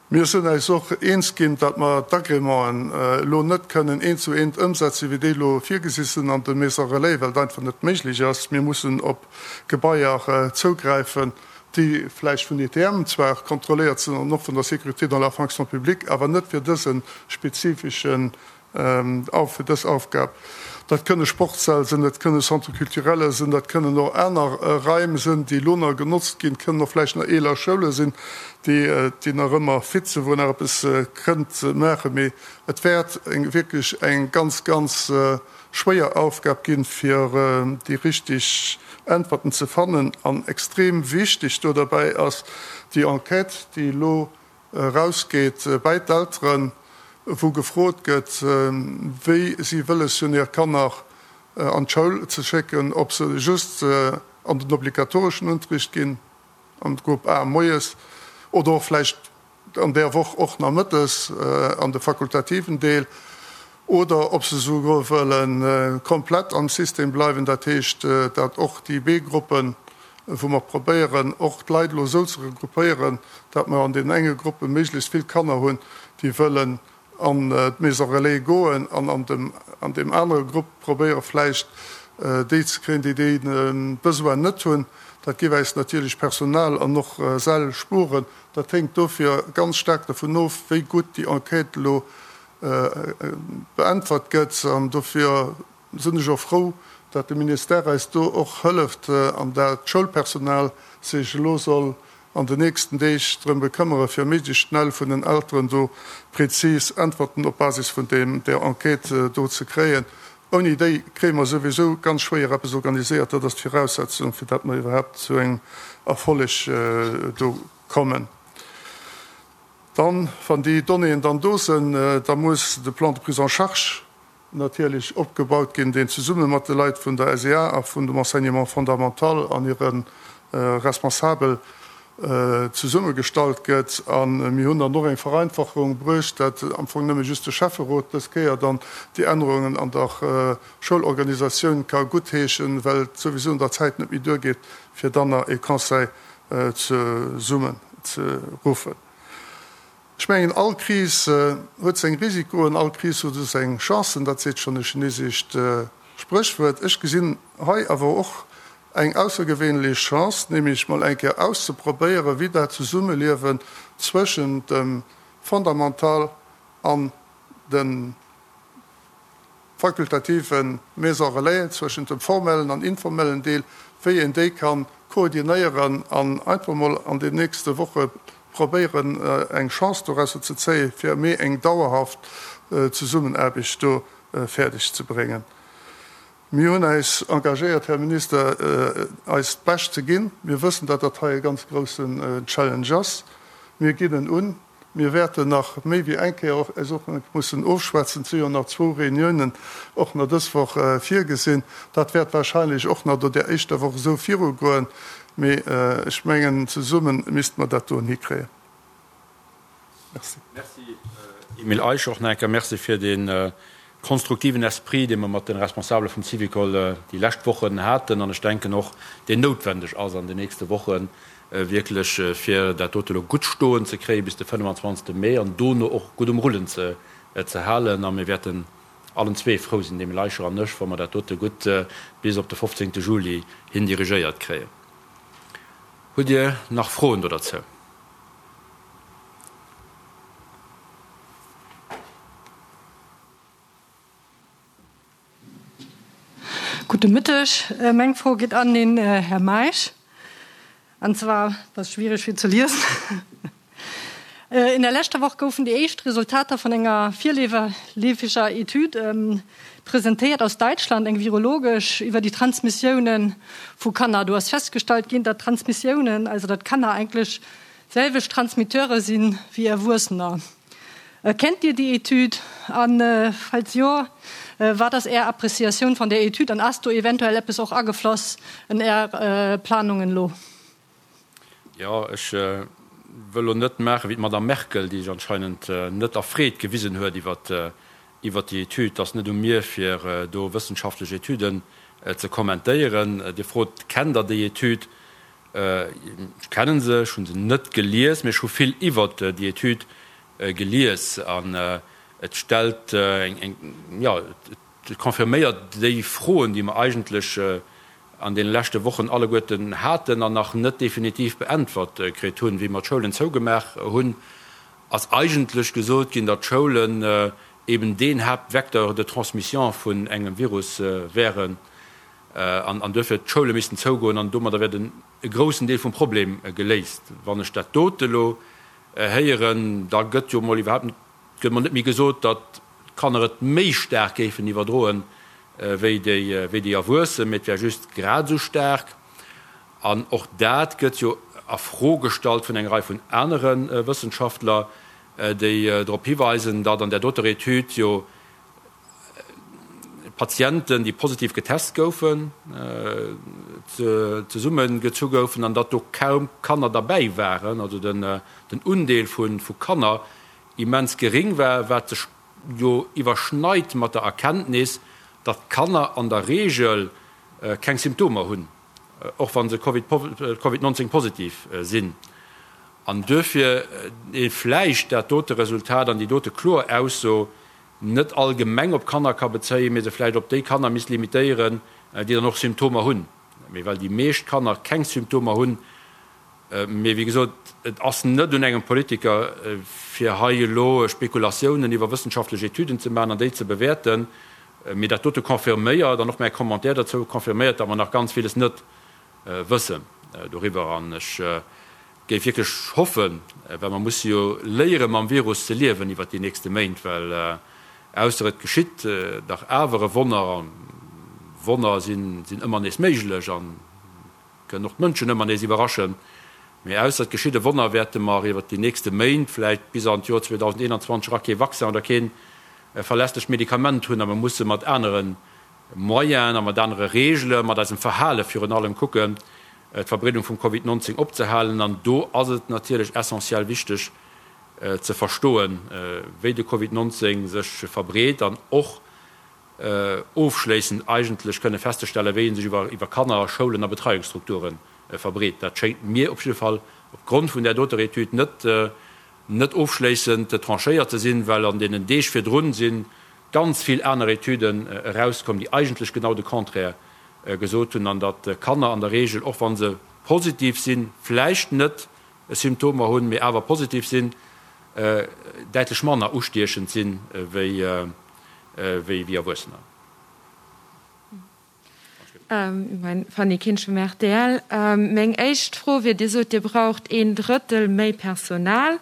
Mir sinn äis och eens ginn, datt mer d'Agrémenten elo net kënnen eent zu eent ëmsetzen, wéi déi elo virgesi sinn an de Maisons relais, well et einfach net méiglech ass. Mir mussen op Gebaier zougräifen, déi vläicht vun ITM zwar kontrolléiert sinn an och vun der Sécurité dans la fonction publique, awer net fir dëse spezifeschen fir dës Aufgab. Dat kënne Sportssäll sinn, dat kënne Centres culturels sinn, dat kënnen och aner Raim sinn, déi elo nach genotzt ginn, kënnen och vläicht nach eeler Schoule sinn, déi, déi nach ëmmer fit sinn, wou een nach eppes kënnt maachen. Mee et wäert eng, wierklech eng ganz, ganz schwéier Aufgab ginn, fir déi richtig Äntwerten ze fannen. An extrem wichteg do derbäi ass déi Enquête, déi elo erausgeet bäi d'Elteren, wou gefrot gëtt, wéi si wëlles hunn, hir Kanner an d'Schoul ze schécken, ob se just an den obligatoreschen Unterricht ginn, an de Grupp A moies, oder och vläicht an där Woch och nach mëttes an de fakultativen Deel. oder ob se souguer wëlle komplett am System bleiwen, dat heescht, datt och déi B-Gruppen, wou mer probéieren och d'Leit elo esou ze regroupéieren, datt mer an deenen enge Gruppe méiglechst vill Kanner hunn, déi wëllen an d'Maison relais goen, an an dem an deem anere Grupp probéiere vläicht déi ze kréien, déi dee Besoin net hunn. Dat géif äis natierlech Personal an och Säll spueren. Dat héngt dofir ganz staark dovun of, wéi gutt déi Enquête elo beäntwert gëtt. An dofir sinn ech och frou, datt de Ministère eis do och hëlleft an dat d'Schoulpersonal sech elo soll an den nächsten Deeg drëm bekëmmere fir méiglechst schnell vun den Elteren do prezis Äntwerten op Basis vun deem där Enquête do ze kréien. Ouni déi kréie mer souwisou ganz schwéier eppes organiséiert. Dat ass d'Viraussetzung, fir datt mer iwwerhaapt zu engem Erfolleg do kommen. Dann, wann déi Donnéeën dann do sinn, da muss de Plan de prise en charge natierlech opgebaut ginn, deen zesumme mat de Leit vun der SEA a vun dem Enseignement fondamental an hire Responsabel zesummegestallt gëtt. A mir hunn dann och eng Vereinfachung bruecht, dat am Fong nëmme just de Schäfferot dës Kéier dann déi Ännerungen an der Schoulorganisatioun ka guttheeschen, well et souwisou an der Zäit net méi duergeet, fir dann nach e Conseil zesummen ze ruffen. Ech mengen, all Kris huet seng Risikoen, all Kris huet och seng Chancen, dat seet schonn e chinesescht Spréchwuert. Ech gesinn hei awer och eng aussergewéinlech Chance, nämlech mol eng Kéier auszeprobéieren, wéi dat Zesummeliewen zwëschent dem Fondamental an dem fakultative Maison relais, zwëschent dem formellen an informellen Deel, wéi een déi ka koordinéieren an einfach mol an den nächste Woche probéieren, eng Chance dorausser ze zéien, fir méi eng dauerhaft Zesummenaarbecht do fäerdeg ze bréngen. Mir hunn äis engagéiert, Här Minister, eist Bescht ze ginn. Mir wëssen, datt dat hei e ganz groussen Challenge ass. Mir ginn en un. Mir wäerten nach méi wéi eng Kéier och eis och mussen ofschwätzen. Et si jo nach zwou Reuniounen och nach dës Woch virgesinn. Dat wäert wahrscheinlech och nach no där éischter Woch esou virugoen. Mee ech mengen, zesumme misste mer dat doen hikréien. Merci. Merci, Emile Eicher. Och nach eng Kéier Merci fir dee konstruktiven Esprit, dee mer mat de Responsabele vum Syvicol déi lescht Wochen haten an ech denken och, deen noutwendeg ass an den nächste Wochen, wierklech fir dat dote elo gutt stoen ze kréie bis de 25. Mee an dono och gutt um Rullen ze halen. A mir wäerten allen zwee frou sinn, de Emile Eicher an ech, wa mer dat dote gutt bis op de 15. Juli hin dirigéiert kréien. Hutt Dir nach Froen do derzou? Gudde Mëtteg. Meng Fro geet an den Här Meisch. An zwar, dat ass schwiereg fir ze liesen, In der leschter Woch goufen déi éischt Resultater vun enger virleefeger Etüd presentéiert aus Däitschland, eng virologesch, iwwer déi Transmissiounen vu Kanner. Do ass festgestallt ginn, datt Transmissiounen, also datt Kanner eigentlech selwecht Transmitteure si wéi Erwuessener. Kennt Dir déi Etüd? A falls jo, wat ass Är Appréciatioun van där Etüd an ass do eventuell eppes och agefloss en Är Planungen elo? Jo, ech wëll elo net maachen wéi d'Madame Merkel, déi sech anscheinend net erfreet gewisen huet iwwert déi Etüd. Et ass net u mir, fir do wëssenschaftlech Etüden ze kommentéieren. Dir frot, Kennt Der déi Etüd? Ech kennen se, ech hunn se net gelies, mee ech hu vill iwwert déi Etüd gelies an et stellt eng, jo, et confirméiert déi Froen, déi mer eigentlech an deene leschte Wochen alleguerten haten an nach net definitiv beäntwert kritt hunn. Wéi mer d'Schoulen zougemaach hunn, ass eigentlech gesot ginn, datt d'Schoulen eben deen Haaptvecteur de transmission vun engem Virus wären. An duerfir d'Schoule missten zougoen an domadder wär den e groussen Deel vum Problem geléist. Wann ech dat dote elo héieren, da gëtt jo mol iwwerhaapt net, gëtt mol net méi gesot, datt d'Kanner et méi staark géifen iwwerdroen wéi déi, wéi déi Erwuessen, mee et wär just grad esou staark. An och dat gëtt jo a Fro gestallt vun enger Rei vun anere Wëssenschaftler, déi drop hiweisen, datt an där doter Etüd jo Patienten, déi positiv getest goufen, zesumme gezu goufen an datt do kaum Kanner derbäi waren, also den Undeel vu Kanner immens geréng war, wat sech. jo iwwerschneit mat der Erkenntnis, datt d'Kanner an der Reegel keng Symptomer hunn, och wa se Covid 19 positiv sinn, an duerfir ee vläicht dat dote Resultat an déi dote kloer Ausso net allgemeng op Kanner ka bezéien, mee se vläicht op déi Kanner misst limitéieren, déi dann och Symptomer hunn. Mee well déi meescht Kanner keng Symptomer hunn, Mee wéi gesot, et ass net un engem Politiker, fir hei elo Spekulatiounen iwwer wëssenschaftlech Etüden ze maachen an déi ze bewäerten. Mee dat dote confirméiert, an och mäi Commentaire dozou confirméiert, datt mer nach ganz villes net wëssen doriwwer. An ech géif wierklech hoffen, well mer musse jo léiere mam Virus ze liewen iwwert déi nächste Méint, well ausser et geschitt dach awer e Wonner, a Wonner sinn ëmmer nees méiglech, an Kënnen och d'Mënschen ëmmer nees iwwerraschen. Mee ausser et geschitt e Wonner, wäerte mer iwwert déi nächste Méint, vläicht bis an d'Joer 2021 era kee Vaccin oder kee verlässlecht Medikament hunn a mer musse mat anere Moyenen a mat anere Reegele, mat eisem Verhale virun allem kucken, d'Verbreedung vum Covid 19 opzehalen. An do ass et natierlech essentiell wichteg ze verstoen, wéi de Covid 19 sech verbreet an och, ofschléissend eigentlech kënne festzestellen, wéi e sech iwwer Kanner, Schoulen a Betreiungsstrukture verbreet. Dat schéngt mir op jidde Fall opgrond vun där doter Etüd net net ofschléissend tranchéiert ze sinn, well an deenen Deeg virdrun si ganz vill aner Etüden erauskomm, déi eigentlech genau de Contraire gesot hunn, an datt Kanner an der Regel, och wa se positiv sinn, vläicht net Symptomer hunn, mee awer positiv sinn, däitlech manner ustiechend sinn wéi wéi Erwuessener. Fanny Kinsch vum rtl. Meng éischt Fro wier, Dir sot, Dir braucht een Drëttel méi Personal.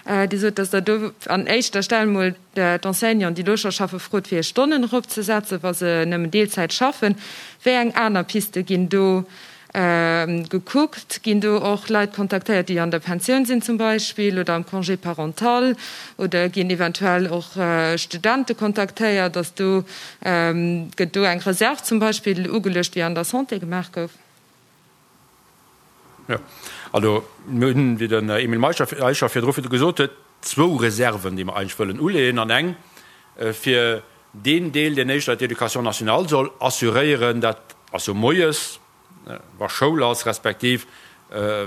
Dir sot, datt Der do an éischter Stell mol d'Enseignanten, déi do scho schaffen, frot, fir hir Stonnen eropzesetzen, wa se nëmmen Deelzäit schaffen. Wéi eng aner Piste ginn do Gekuckt? Ginn do och Leit kontaktéiert, déi an der Pensioun sinn zum Beispill oder am Congé parental? Oder ginn eventuell och Studente kontaktéiert? Ass do, gëtt do eng Reserve zum Beispill ugeluecht, wéi an der Santé gemaach gouf? Jo, also mir hunn, wéi den Emile Eicher virdru gesot huet, zwou Reserven, déi mer eigentlech wëllen uleeën an eng fir deen Deel, deen éischter d'Éducation nationale soll assuréieren, dat ass jo moies, wa Schoul ass, respektiv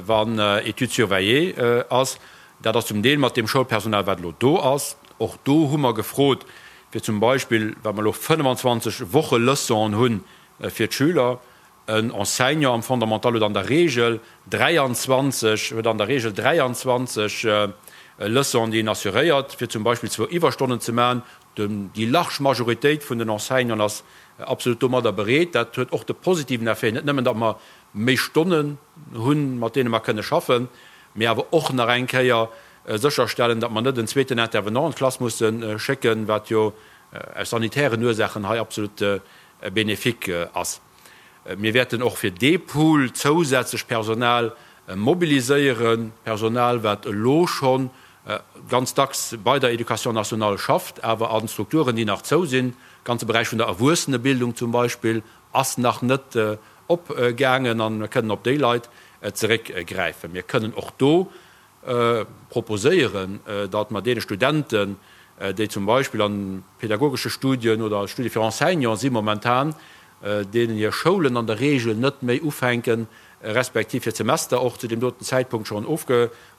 wann Études surveillées ass. Dat ass zum Deel mat deem Schoulpersonal, wat elo do ass. Och do hu mer gefrot, fir zum Beispill, well mer elo 25 Wocheleçonen hu fir d'Schüler, En Enseignant am Fondamental huet an der Regel 23, huet an der Regel 23 Leçonen, déi en assuréiert, fir zum Beispill zwou Iwwerstonnen ze maachen. Déi large Majoritéit vun den Enseignanten ass absolut domadder bereet. Dat huet och de positiven Effet, net nëmmen, datt mer méi Stonnen hunn, mat deene mer kënne schaffen, mee awer och nach eng Kéier sécherstellen, datt mer net en zweeten Intervenant an d'Klass musse schécken, wat jo aus sanitären Ursaachen hei absolut bénéfique ass. Mir wäerten och fir dee Pool zousätzlech Personal mobiliséieren, Personal, wat elo scho ganz dacks bei der Éducation nationale schafft, awer a Strukturen, déi nach zou sinn. De ganze Beräich vun der Erwuessenebildung zum Beispill ass nach net opgaangen a mir kënnen op déi Leit zeréckgräifen. Mir kënnen och do proposéieren, datt mer deene Studenten, déi zum Beispill an pedagogesche Studien oder Studie fir Enseignant si momentan, deenen hir Schoulen an der Regel net méi ufänken, respektiv hir Semester och zu deem doten Zäitpunkt schonn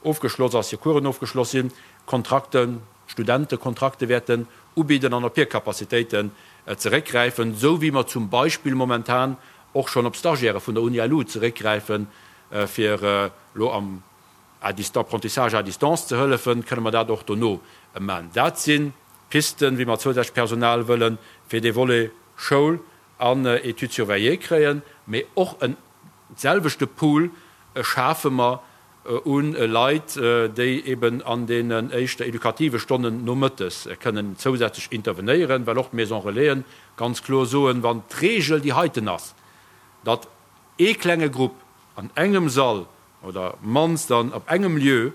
ofgeschloss ass, hir Coursen ofgeschloss sinn, Kontrakten, Studentekontrakte wäerten ubidden an op hir Capacitéiten zeréckgräifen, esou wéi mer zum Beispill momentan och schonn op Stagiaire vun der Uni-LU zeréckgräifen, fir elo am à distance, Apprentissage à distance ze hëllefen, kënne mer dat och dono man. Dat si Pisten, wéi mer zousätzlech Personal wëlle fir dee Volet Schoul an Études surveillées kréien. Mee och en selwechte Pool schafe mer u Leit, déi eben an deenen éischter edukative Stonnen nomëttes kënnen zousätzlech intervenéieren, well och d'Maison Relaisen ganz kloer soen, wann d'Regel déi heiten ass, datt ee klenge Grupp an engem Sall oder mannst dann op engem Lieu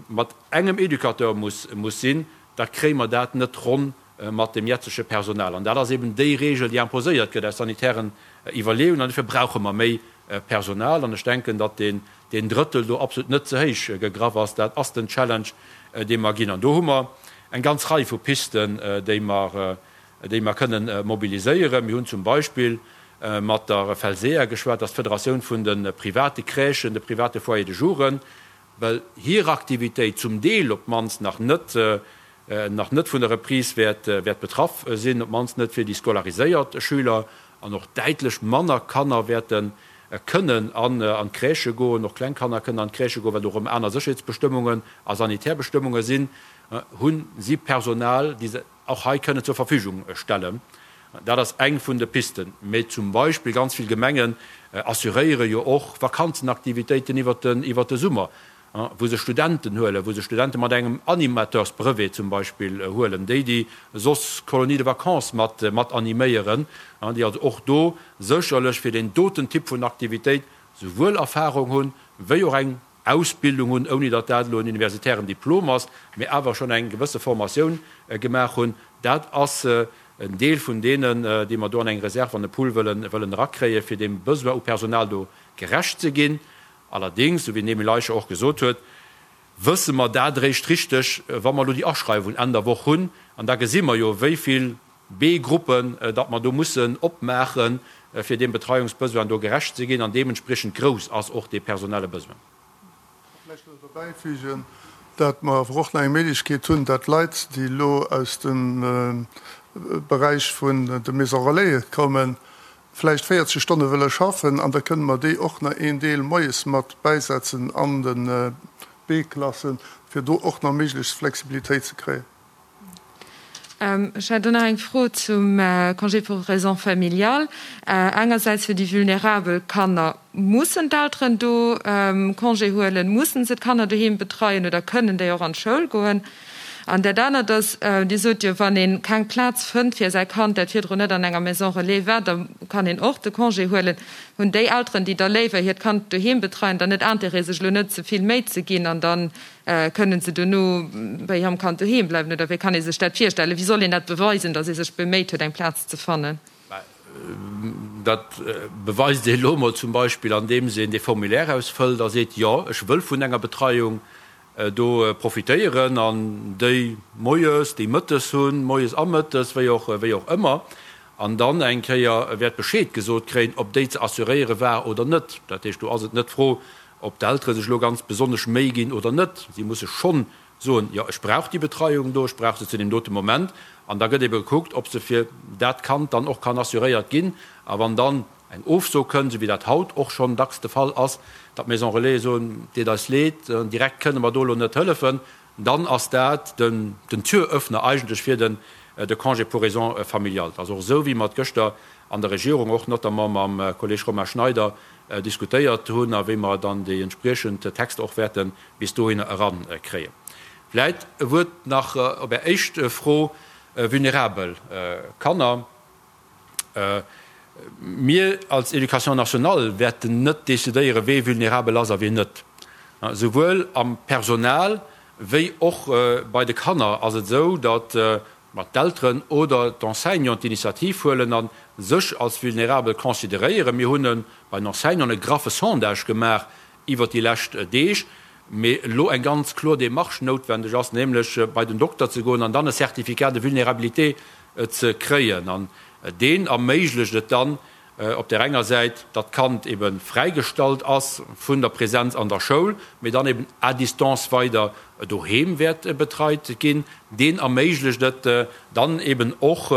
mat engem Educateur muss muss sinn, da kréie mer dat net ronn mat dem jetzege Personal. An dat ass eben déi Regel, déi imposéiert gëtt aus sanitären Iwwerleeungen. An dofir brauche mer méi Personal. An ech denken, datt deen deen Drëttel do absolut net ze héich gegraff ass. Dat ass den Challenge, dee mer ginn. An do hu mer. eng ganz Rei vu Pisten, déi mer, déi mer kënnen mobiliséieren. Mir hunn zum Beispill mat der FELSEA geschwat, dat ass d'Federatioun vun de private Crèchen, de private Foyers de jouren, well hir Aktivitéit zum Deel op d'mannst nach net, nach net vun der Reprise wäert, wäert betraff sinn, op d'mannst net fir déi scolariséiert Schüler, an och däitlech manner Kanner wäerte kënnen an d'Crèchë goen, och kleng Kanner kënnen an d'Crèchë goen, well do erëm aner Sécherheetsbestëmmungen a sanitär Bestëmmunge sinn, hu si Personal, déi se och hei kënnen zur Verfügung stellen. Dat ass eng vun de Pisten. Mee zum Beispill ganz vill Gemengen assuréiere jo och Vakanzenaktivitéiten iwwert de Summer, wou se Studenten huelen, wou se Studente mat engem Animateursbrevet zum Beispill huelen, déi déi soss Colonies de vacances mat mat animéieren, déi also och do sécherlech fir deen doten Typ vun Aktivitéit souwuel Erfahrung hunn, wéi och eng Ausbildung hunn, ouni datt dat elo en universitären Diplom ass, mee awer schonn eng gewësse Formatioun gemaach hunn. Dat ass en Deel vun deenen, déi mer do an eng Reserve, an e Pool wëllen wëllen erakréien, fir deem Besoin u Personal do gerecht ze ginn. Allerdéngs, esou wéi den Emile Eicher och gesot huet, wësse mer dat eréischt richteg, wa mer elo déi Aschreiwung Enn der Woch hunn. An da gesi mer jo, wéi vill B-Gruppen datt mer do mussen opmaachen, fir deem Betreiungsbesoin do gerecht ze ginn. An deementspriechend grouss ass och dee personelle Besoin. Vläicht nach derbäifügen, datt mer awer och nach eng Méiglechkeet hunn, datt Leit, déi elo aus dem Beräich vun de Maisons Relaisen kommen, vläicht 40 Stonne wëlle schaffen, an da kënne mer déi och nach een Deel moies mat bäisetzen an de B-Klassen, fir do och nach méiglechst Flexibilitéit ze kréien. Ech hätt och nach eng Fro zum Congé pour raisons familiales. Engersäits fir déi vulnerabel Kanner, Mussen d'Elteren do Congé huelen? Mussen se d'Kanner doheem betreien oder kënnen déi och an d'Schoul goen? An dat anert ass, Dir sot jo, wann ee keng Plaz fënnt fir säi Kand, dat virdrun net an enger Maison relais war, da kann een och de Congé huelen. Hunn déi Elteren, déi da léiwer hiert Kand doheem betreien, dann net Intérêt, sech elo net ze vill Méi ze ginn an dann Kënnen se dono bei hirem Kand doheem bleiwen oder wéi kann ee sech dat virstellen? Wéi soll een dat beweisen, datt ee sech beméit huet, eng Plaz ze fannen? Dat beweist ee elo emol zum Beispill, andeems een dee Formulaire ausfëllt a seet, Jo, ech wëll vun enger Betreiung do profitéieren an déi moies, déi mëttes hunn, moies a mëttes, wéi och, wéi och ëmmer. An dann eng Kéier wäert Bescheed gesot kréien, ob déi ze assuréiere war oder net. Dat heescht, do ass et net d'Fro, Ob d'Eltere sech elo ganz besonnesch Méi ginn oder net, si musse schonn soen, jo ech brauch déi Betreiung do, ech brauch se zu deem dote Moment. An da gëtt ebe gekuckt, ob se fir dat Kand dann och kann assuréiert ginn. A wann dann eng Ofso kënnt, esou wéi dat haut och schonn dacks de Fall ass, datt d'Maison Relaisen soen, deet eis leed, direkt kënne mer do elo net hëllefen, dann ass dat den Türöffner eigentlech fir den de Congé pour raisons familiales. Et ass och esou, wéi mer et gëschter an der Regierung och notamment mam Kolleg Romain Schneider diskutéiert hunn a wéi mer dann déi entspriechend Texter och wäerte bis dohinner erankréien. Vläit e Wuert nach op Är éischt Fro, vulnerabel Kanner. Mir als Éducation nationale wäerten net decidéieren, wee vulnerabel ass a wien net. Souwuel am Personal wéi och bei de Kanner ass et esou, datt Ma d'Elteren oder d'Enseignanten d'Initiativ huelen a sech als vulnerabel consideréieren. Mir hunn bei den Enseignanten e graffe Sondage gemaach iwwert déi lescht Deeg, mee elo eng ganz kloer Démarche noutwendeg ass, nämlech bei den Dokter ze goen an dann e Certificat de vulnérabilité ze kréien. An deen erméiglecht et dann, Op där enger Säit, datt d'Kand ebe fräigestallt ass vun der Präsenz an der Schoul, mee dann eben à distance weider doheem wäert betreit ginn. Deen erméiglecht et dann eben och,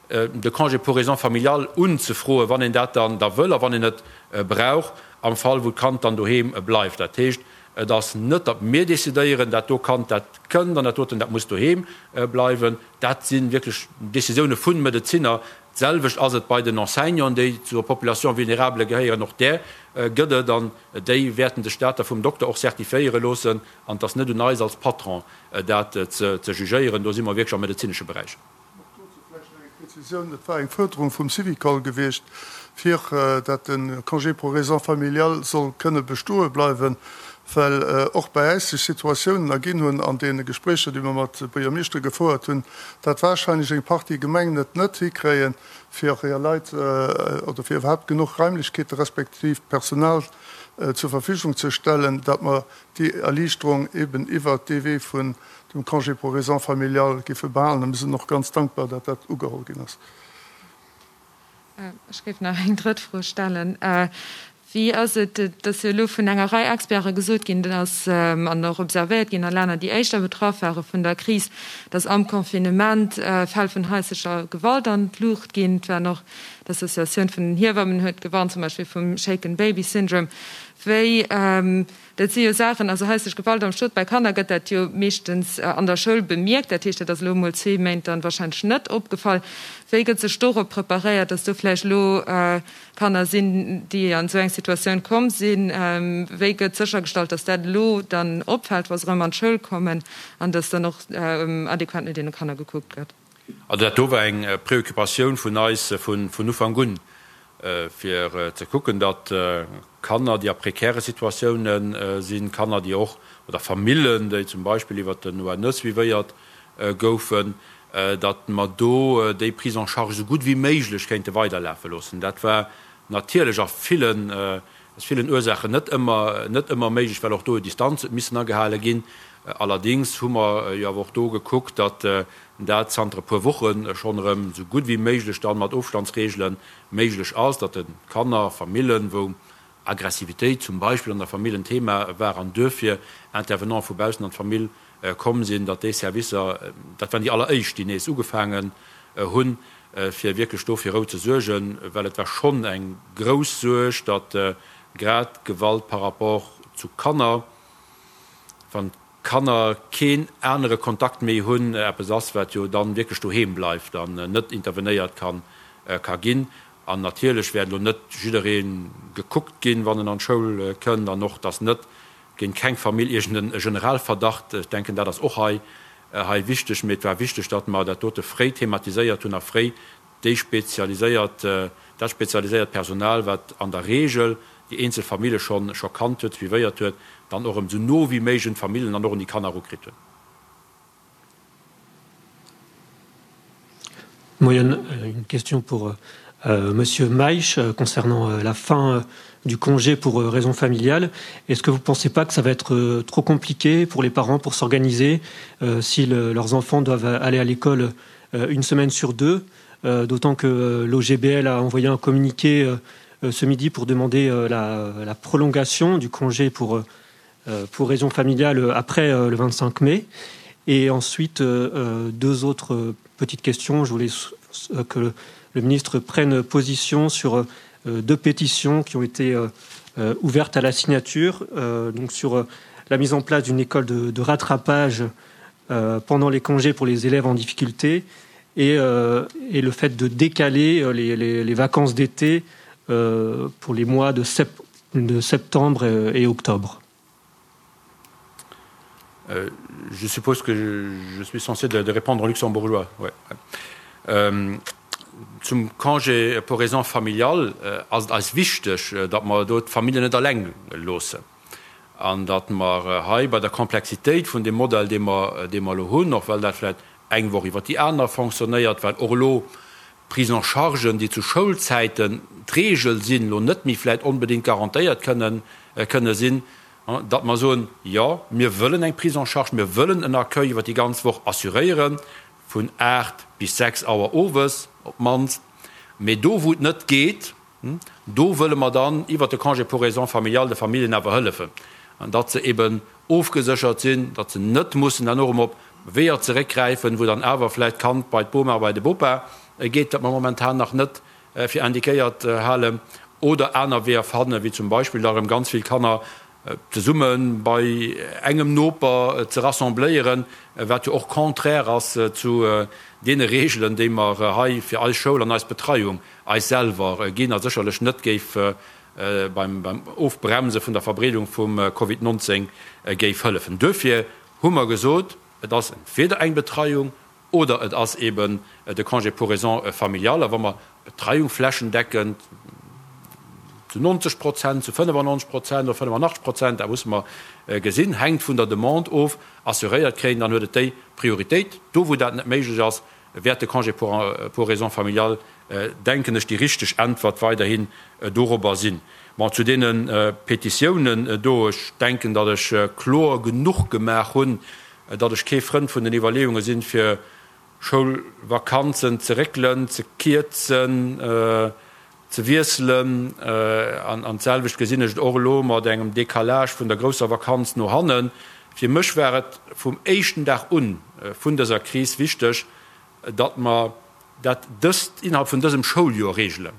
de Congé pour raisons familiales unzefroen, wann een dat dann da wëll a wann een et brauch, am Fall wou d'Kand dann doheem bleift. Dat heescht, et ass net, datt mir decidéieren, dat do Kand, dat kënnt an dat doten, dat muss doheem bleiwen. Dat si wierklech Décisioune vu Medezinner, D'selwecht ass et bei den Enseignanten, déi zur Population vulnérable gehéieren. Och där gëtt et an déi wäerten sech dat da vum Dokter och certifiéiere loossen. An et ass net un eis als Patron, dat ze jugéieren. Do si mer wierklech am medezinesche Beräich. Och dozou vläicht nach eng Prezisioun, Et war eng Fuerderung vum Syvicol gewiescht, fir dat de Congé pour raisons familiales soll kënne bestoe bleiwen, well och bei äis sech Situatiounen erginn hunn an deene Gespréicher, déi mer mat Buergermeeschtere gefouert hunn, dat warscheinlech eng Partie Gemengen et net hikréien, fir hir Leit oder fir iwwerhaapt genuch Raimlechkeete respektiv Personal. zur Verfügung ze stellen, datt mer déi Erliichterung eben iwwert dee Wee vun dem Congé pour raisons familiales géife behalen. A mir sinn och ganz dankbar, datt dat ugeholl ginn ass. Ech géif nach eng drëtt Fro stellen. Wéi ass et, et ass jo elo vun enger Rei Experte gesot ginn, dass, an och observéiert ginn a Länner, déi éischter betraff ware vun der Kris, dass am Confinement Fäll vun haislecher Gewalt an d'Luucht ginn. Et waren och d'Associatioun vun den Hiewammen huet gewarnt, zum Beispill vum Shaken Baby Syndrome. Wéi, dat si jo Saachen, also haislech Gewalt am Stot bei Kanner gëtt dat jo meeschtens an der Schoul bemierkt, dat heescht, dat ass elo emol zwee Méint dann wahrscheinlech net opgefall. Wéi gëtt sech dorop preparéiert, dass do vläicht elo Kanner sinn, déi an esou eng Situatioun komm sinn? Wéi gëtt séchergestallt, dass dat elo dann opfält, wa se erëm an d'Schoul kommen an dass dann och adequat no deene Kanner gekuckt gëtt? Also dat do war eng Préoccupatioun vun eis vun Ufank un, fir ze kucken, datt Kanner, déi a prekäre Situatiounen sinn, Kanner, déi och, oder Famillen, déi zum Beispill iwwert den ONE suivéiert goufen, datt mer do déi Prise en charge esou gutt wéi méiglech kéinte weiderlafe loossen. Dat war natierlech a villen, aus villen Ursaachen net ëmmer, net ëmmer méiglech, well och do Distanz huet missen agehale ginn. Allerdéngs hu mer jo awer och do gekuckt, datt dat zanter e puer Woche schonn erëm esou gutt wéi méiglech dann mat Ofstandsregele méiglech ass, datt de Kanner, Famillen, wou Aggressivitéit zum Beispill an der Famill en Thema war an duerfir Intervenante vu baussen an d'Famill komm sinn, datt déi Servicer, dat waren déi alleréischt, déi nees ugefaangen hunn, fir wierklech do fir Rou ze suergen, well et war schonn eng grouss Suerg, datt grad Gewalt par rapport zu Kanner, wann d'Kanner keen anere Kontakt méi hunn, eppes ass, wat jo dann wierklech doheem bleift an net intervenéiert ka ginn. An natierlech wäert elo net jidderee gekuckt ginn, wann en an d'Schoul kënnt, an och dass net géint keng Famill iergend e Generalverdacht, ech denken, dat ass och hei hei wichteg, mee et war wichteg, datt mer dat dote fréi thematiséiert hunn a fréi déi spezialiséiert, dat spezialiséiert Personal, wat an der Regel déi eenzel Famille schonn scho kannt huet, suivéiert huet, dann och erëm esou no wéi méiglech un d'Famillen an och un déi Kanner erukritt hunn. Moien, une question pour euh, Monsieur Meisch euh, concernant euh, la fin euh, du congé pour euh, raison familiale. Est-ce que vous ne pensez pas que ça va être euh, trop compliqué pour les parents pour s'organiser euh, si le, leurs enfants doivent aller à l'école euh, une semaine sur deux, euh, d'autant que euh, l'OGBL a envoyé un communiqué euh, euh, ce midi pour demander euh, la, la prolongation du congé pour, euh, euh pour raison familiale euh, après euh, le 25 mai. Et ensuite, euh, euh, deux autres euh, petites questions. Je voulais euh, que le, le ministre prenne position sur euh, deux pétitions qui ont été euh, euh, ouvertes à la signature, euh, donc sur euh, la mise en place d'une école de, de rattrapage euh, pendant les congés pour les élèves en difficulté et, euh, et le fait de décaler euh, les, les, les vacances d'été euh, pour les mois de, sep de septembre et octobre. Euh, je suppose que je, je suis censé de, de répondre en luxembourgeois. Ouais. Euh, zum Congé pour raisons familiales äh, ass et eis wichteg, äh, datt mer do d'Familljen net alleng loossen an datt mer äh, hei bei der Komplexitéit vun dem Modell, dee mer, dee mer elo hunn, och well dat vläicht eng Woch iwwer déi aner fonctionnéiert, well och elo Prise en chargen, déi zu Schoulzäiten d'Regel sinn, elo net méi vläicht onbedéngt garantéiert kënnen, kënne sinn, datt mer soen, jo, mir wëllen eng Prise en charge, mir wëllen en Accueil iwwer déi ganz Woch assuréieren, vun 8 bis 6 Auer owes op d'mannst, mee do wou et net geet, do wëlle mer dann iwwert de Congé pour raisons familiales de Familljen awer hëllefen, datt se eben ofgeséchert sinn, datt se net mussen dann och erëm op Weeër zeréckgräifen, wou dann awer vläicht d'Kand bei d'Boma, bei de Bopa geet, wat mer momentan nach net fir indiquéiert halen, oder aner Weeër fannen, wéi zum Beispill da erëm ganz vill Kanner zesumme bei engem Noper ze rassembléieren, wat jo och contraire ass zu deene Reegelen, déi mer hei fir eis Schoul an eis Betreiung eis selwer ginn a sécherlech net géif beim Ofbremse vun der Verbreedung vum Covid 19 géif hëllefen. Duerfir hu mer gesot, et ass entweder eng Betreiung Oder et ass eben de Congé pour raisons familiales. A wa mer d'Betreiung flächendeckend zu 90 Prozent, zu 95 Prozent oder 85 Prozent, dat musse mer gesinn, hänkt vun der Demande of, assuréiert kréien, dann huet et déi Prioritéit. Do wou dat net méiglech ass, wäert de Congé pour raisons familiales, denken ech, déi richteg Äntwert weiderhin dorobber sinn. Bon, zu deene Petitiounen do, ech denken, datt ech kloer genuch gemaach hunn, datt ech kee Frënd vun den Iwwerleeunge sinn, fir Schoulvakanzen ze réckelen, ze kierzen, ze wiesselen. An d'selwecht gesinn ech et och elo mat engem Décalage vun der grousser Vakanz no hannen. Fir mech war et vum éischten Dag un vun dëser Kris wichteg, datt mer dat dëst innerhalb vun dësem Schouljoer regelen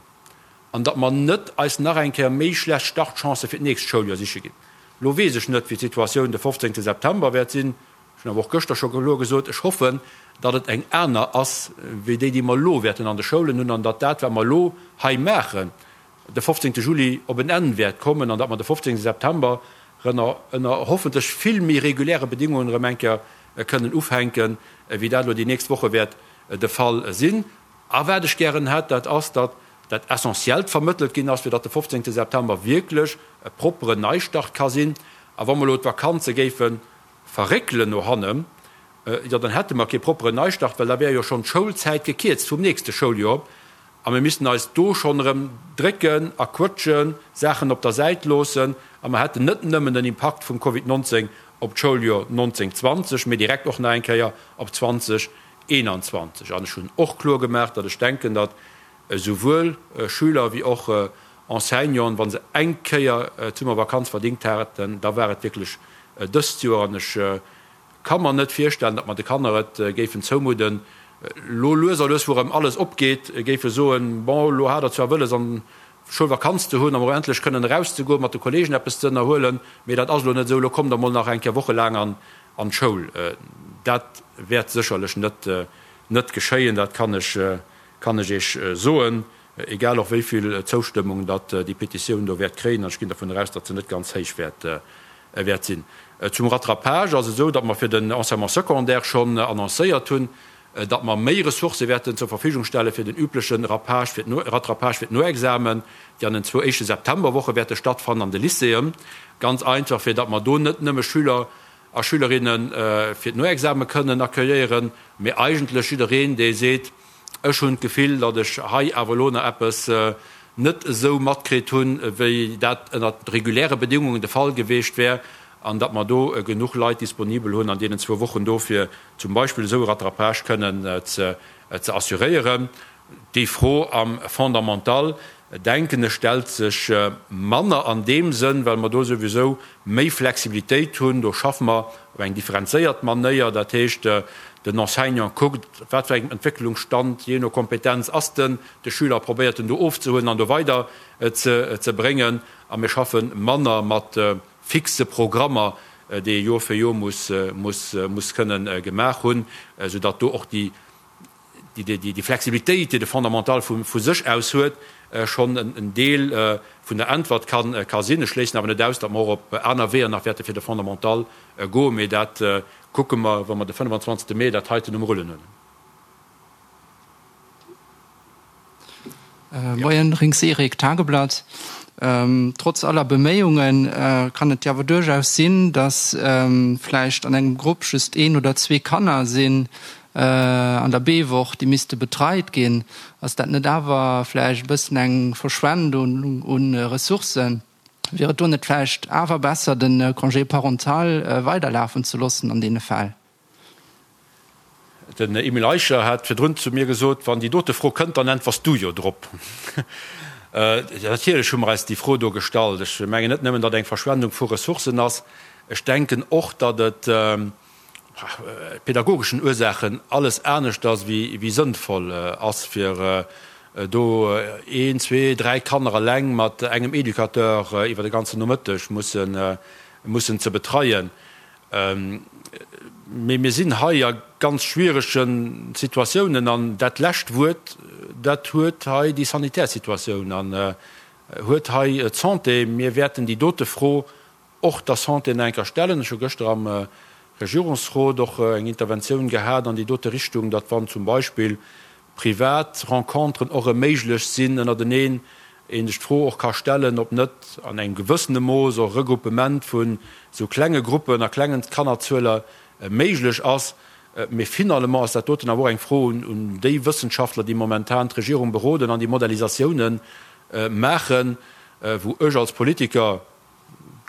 an datt mer net eis nach eng Kéier méi schlecht Startchancë fir d'nächst Schouljoer siche ginn. Elo weess ech net, wéi d'Situatioun de 15 September wäert sinn. Ech hunn awer och gëschter scho kloer gesot, ech hoffen, datt et eng aner ass wéi déi, déi mer elo wäerten an de Schoulen hunn an datt dat, wat mer elo hei maachen, de 15 Juli op en Enn wäert kommen an datt mer de 15 September rënner ënner hoffentlech vill méi reguläre Bedingungen erëm eng Kéier kënnen ufänken, wéi dat elo déi nächst Woche wäert de Fall sinn. A wat ech gären hätt, dat ass, datt dat Essentiellt vermëttelt ginn ass, fir datt de 15 September wierklech e propperen Neistart ka sinn. A wa mer elo d'Vakanze géife verréckelen no hannen, jo dann hätte mer kee propperen Neistart, well da wär jo schonn d'Schoulzäit gekierzt vum nächste Schouljoer a mir missten eis do schonn erëm drécken a quëtschen, Saachen op der Säit loossen a mer hätten net nëmmen den Impakt vum Covid 19 op d'Schouljoer 19, 20, mee direkt och nach eng Kéier op 20, 21. An ech hunn och kloer gemaach, datt ech denken, datt esouwuel Schüler wéi och Enseignanten, wa se eng Kéier d'Summervakanz verdingt haten, da war et wierklech dëst Joer. An ech ka mer net virstellen, datt mer de Kanner et géifen zoumudden, elo lues a lues, wou erëm alles opgeet, géife soen, Bon, elo hat Der zwar wëlles an Schoulvakanz ze hunn an emol endlech kënnen erauszegoen, mat de Kolleegen eppes ze ënnerhuelen, mee dat ass elo net esou, elo kommt Der mol nach eng Kéier wochelaang an d'Schoul. Dat wäert sécherlech net net geschéien, dat kann ech kann ech Iech soen, egal och wéi vill Zoustëmmung datt déi Petitioun do wäert kréien, an ech ginn dervun eraus, datt se net ganz héich wäert wäert sinn. Zum Rattrapage ass et esou, datt mer fir den Enseignement secondaire schonn annoncéiert hunn, datt mer méi Ressourcë wäerten zur Verfügung stelle fir den übleche Rattrapage fir d'Noexamen, déi an den zwou éischte Septemberwoche wäerte stattfannen an de Lycéeën. Ganz einfach, fir datt mer do net nëmme Schüler a Schülerinne fir d'Noexame kënnen accueilléieren, mee eigentlech jiddereen, dee seet, Ech hunn d'Gefill, datt ech hei awer elo nach eppes net esou matkritt hunn, wéi dat ënnert reguläre Bedingungen de Fall geweecht wär, an datt mer do genuch Leit disponibel hunn an deenen zwou Wochen do, fir zum Beispill esou e Rattrapage kënnen ze assuréieren. Déi Fro am Fondamental, denken ech, stellt sech manner an deem Sënn, well mer do souwisou méi Flexibilitéit hunn. Do schaffe mer op eng differenzéiert Manéier. Dat heescht, den Enseignant kuckt, op wat fir engem Entwécklungsstand, jee no Kompetenz, ass den de Schüler, probéiert en do ofzehuelen an do weider ze bréngen. A mir schaffe manner mat fixe Programmer, déi ee Joer fir Joer muss kënnen gemaach hunn, soudatt do och déi déi Flexibilitéit, déi de Fondamental vu sech aus huet, schonn en Deel vun der Äntwert ka sinn. Ech schléissen awer net aus, datt mer och op aner Weeër nach wäerte fir de Fondamental goen, mee dat kucke mer, wa mer de 25 Mee dat heiten um Rullen hunn. Moien, Rinks Eric, Tageblatt. Trotz aller Beméiungen kann et jo awer duerchaus sinn, datt vläicht an engem Grupp just een oder zwee Kanner sinn an der B-Woch, déi misste betreit ginn. Ass dat net awer vläicht e bëssen eng Verschwendung u Ressourcen? Wier et do net vläicht awer besser, de Congé parental weiderlafen ze loossen an deene Fäll? Den Emile Eicher hat virdrun zu mir gesot, Wann déi dote Fro kënnt, dann äntwers du jo drop. Natierlech hu mer eis déi Fro do gestallt. Ech mengen net nëmmen, datt eng Verschwendung vu Ressourcen ass, ech denken och, datt et pädagogeschen Ursaachen alles aneschters wéi sënnvoll ass, fir do een, zwee, dräi Kanner eleng mat engem Educateur iwwer de ganzen Nomëtteg mussen ze betreien. Mee mir sinn hei a ganz schwierege Situatiounen an dat lescht Wuert, dat huet hei déi sanitär Situatioun an huet hei d'Santé. Mir wäerten déi dote Fro och der Santé nach eng Kéier stellen. Ech hu gëschter am Regierungsrot och eng Interventioun gehat an déi dote Richtung, datt wann zum Beispill privat Renconteren och erëm méiglech sinn ënnerteneen, ee sech d'Fro och ka stellen, ob net an engem gewëssene Mooss och Regruppement vun esou klenge Gruppen a klengen Kannerzueler méiglech ass. Mee finalement ass dat doten awer och eng Fro un déi Wëssenschaftler, déi momentan d'Regierung beroden an déi Modellisatiounen maachen. wou ech als Politiker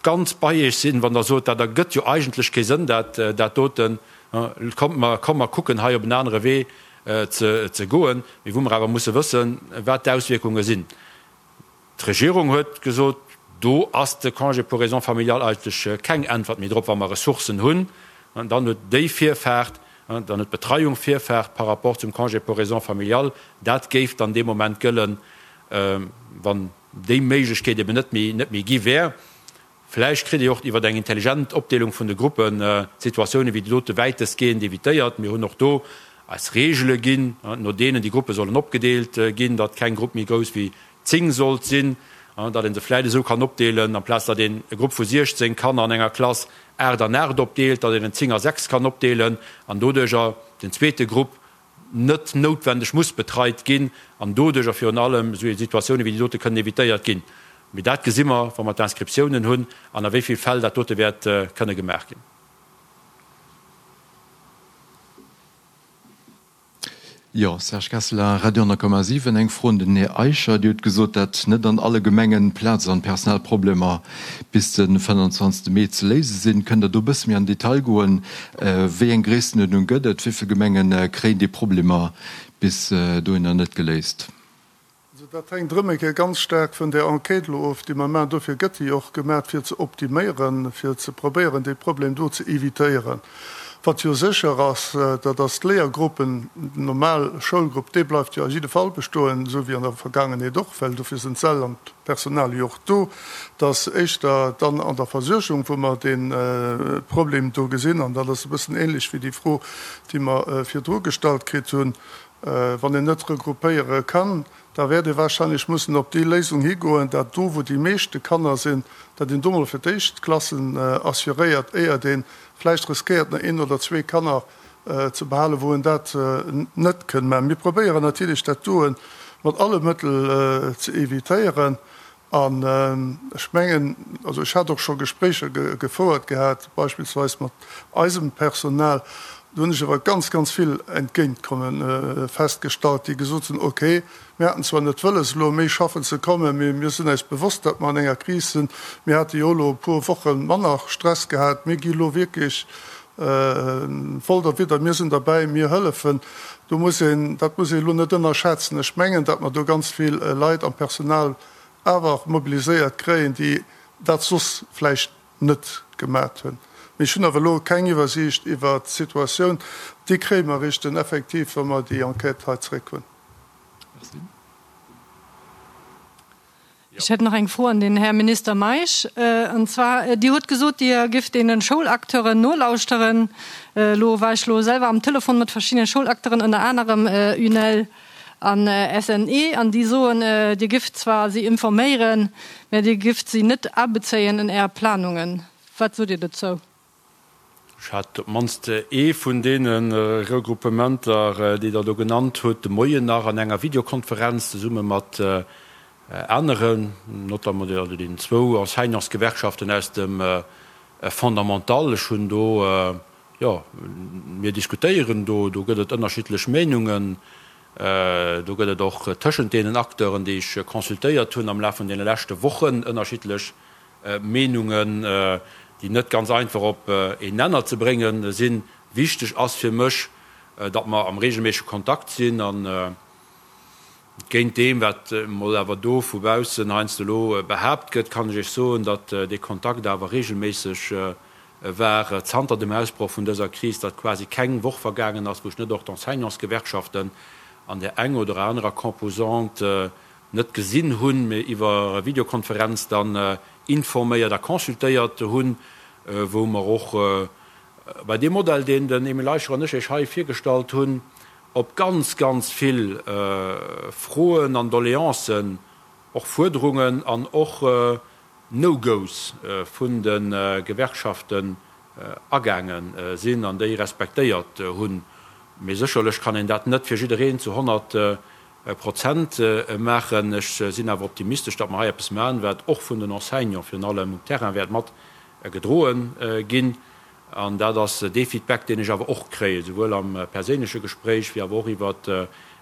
ganz bei Iech sinn, wann Der sot, dat ergëtt jo eigentlech kee Sënn, dat dat doten, kommt mer, komm mer kucken hei op en anere Wee ze goen, mee wou mer awer musse wëssen, wat d'Auswierkunge sinn. D'Regierung huet gesot, do ass de Congé pour raisons familiales eigentlech keng Äntwert méi drop, wa mer Ressourcen hunn, dann huet déi Virfaart, dann huet d'Betreiung Virfaart par rapport zum Congé pour raisons familiales. Dat géif dann dee Moment gëllen, wann déi Méiglechkeet eben net méi, net méi gi wär. Vläicht kritt Dir och iwwer eng intelligent Opdeelung vun de Gruppen d'Situatioune wéi déi dote wäitestgehend evitéiert. Mir hunn och do eis Reegele ginn, no deenen déi Gruppe sollen opgedeelt ginn, datt keng Grupp méi grouss wéi 10 sollt sinn, datt ee se vläicht esou kann opdeelen, amplaz datt een e Grupp vu 16 Kanner an enger Klass 8 an 8 opdeelt, datt een en 10 a 6 kann opdeelen an doduercher den zweete Grupp net noutwendeg muss betreit ginn an doduercher virun allem esou Situatioune wéi déi dote kënnen evitéiert ginn. Mee dat gesi mer, wa mer d'Inscriptiounen hunn an a wéi vill Fäll dat dote wäert kënne gemaach ginn. Jo, Serge Kesseler, Radio 10,7. Eng Fro un den Här Eicher. Dir hutt gesot, datt net an alle Gemengen Plaz an Personalproblemer bis de 25 Mee ze léise sinn. Kënnt Der do e bësse méi an den Detail goen? Wéi eng Gréisstenuerdnung gëtt et? Wéi vill Gemenge kréien déi Problemer bis dohinner net geléist? Also dat hänkt erëm eng Kéier ganz staark vun där Enquête elo of, déi mer maachen. Dofir gëtt déi och gemaach, fir ze optiméieren, fir ze probéieren, dee Problem do ze évitéieren. Wat jo sécher ass, dat ass d'Léiergruppen, den normal Schoulgrupp, dee bleift jo a jidde Fall bestoen, esou wéi an der Vergaangenheet och, well dofir sinn d'Säll an d'Personal jo och do. Et ass éischter dann an der Versuergung, wou mer dee Problem do gesinn. An dat ass e bëssen ähnlech wéi déi Fro, déi mer virdru gestallt kritt hunn. Wann een net regroupéiere kann, da wäert ee wahrscheinlech mussen op déi Léisung higoen, dat do, wou déi meeschte Kanner sinn, dat een do mol fir d'éischt d'Klassen assuréiert, éiert ee vläicht riskéiert, nach een oder zwee Kanner ze behalen, wou een dat net kënn maachen. Mir probéieren natierlech, dat doe mat alle Mëttel ze évitéieren. An ech mengen, also ech hat och scho Gespréicher gefouert gehat, beispillsweis mat eisem Personal, do hunn ech awer ganz, ganz vill Entgéintkomme festgestallt, déi gesot hunn, okay, mir haten zwar net wëlles elo méi schaffen ze kommen, mee mir sinn eis bewosst, datt mer an enger Kris sinn, mir hate jo elo e puer Woche manner Stress gehat, mir gi elo wierklech voll derwidder, mir sinn derbäi, mir hëllefen. Do muss een, dat muss ee elo net ënnerschätzen. Ech mengen, datt mer do ganz vill Leit am Personal awer mobiliséiert kréien, déi dat soss vläicht net gemat hunn. Mee ech hunn awer elo keng Iwwersiicht iwwert d'Situatioun. Déi kréie mer eréischt dann effektiv, wa mer déi Enquête hei zréck hunn. Merci. Ech hätt nach eng Fro an den Här Minister Meisch. An zwar, Dir hutt gesot, Dir gifft deene Schoulacteuren nolauschteren. Elo war ech elo selwer am Telefon mat verschiddene Schoulacteuren, ënner anerem UNEL an SNE, an déi soen, Dir gifft zwar si informéieren, mä Dir gifft si net abezéien en Är Planungen. Wat sot Dir dozou? Ech hat op d'mannst ee vun deene Regruppementer, déi Der do genannt hutt, de Moien nach an enger Videokonferenz zesumme mat aneren, notamment deenen zwou Enseignantsgewerkschaften aus dem Fondamental. Ech hunn do, jo, mir diskutéieren do, do gëtt et ënnerschiddlech Meenungen, do gëtt et och tëschent deenen Acteuren, déi ech consultéiert hunn am Laf vun deene leschte Wochen, ënnerschiddlech Meenungen, déi net ganz einfach op een Nenner ze bréngen sinn. Wichteg ass fir mech, datt mer am regelméissege Kontakt sinn an géint deem, wat emol awer do vu baussen heiansdo elo behaapt gëtt, kann ech Iech soen, datt dee Kontakt awer regelméisseg war zanter dem Ausbroch vun dëser Kris, datt quasi keng Woch vergaangen ass, wou ech net och d'Enseignantsgewerkschaften an där eng oder anerer Composante net gesinn hunn, mee iwwer Videokonferenz dann informéiert a consultéiert hunn, wou mer och bei deem Modell, deen den Emile Eicher an ech Iech hei virgestallt hunn, op ganz, ganz vill Froen an Doleancen, och Fuerderungen an och No-Goes vun de Gewerkschaften agaange sinn an déi respektéiert hunn. Mee sécherlech kann een dat net fir jiddereen zu 100 Prozent maachen. Ech sinn awer optimistesch, datt mer hei eppes maachen, wat och vun den Enseignants virun allem um Terrain wäert mat gedroe ginn. An dat ass dee Feedback, deen ech awer och kréien, souwuel am perséinleche Gespréich wéi awer och iwwert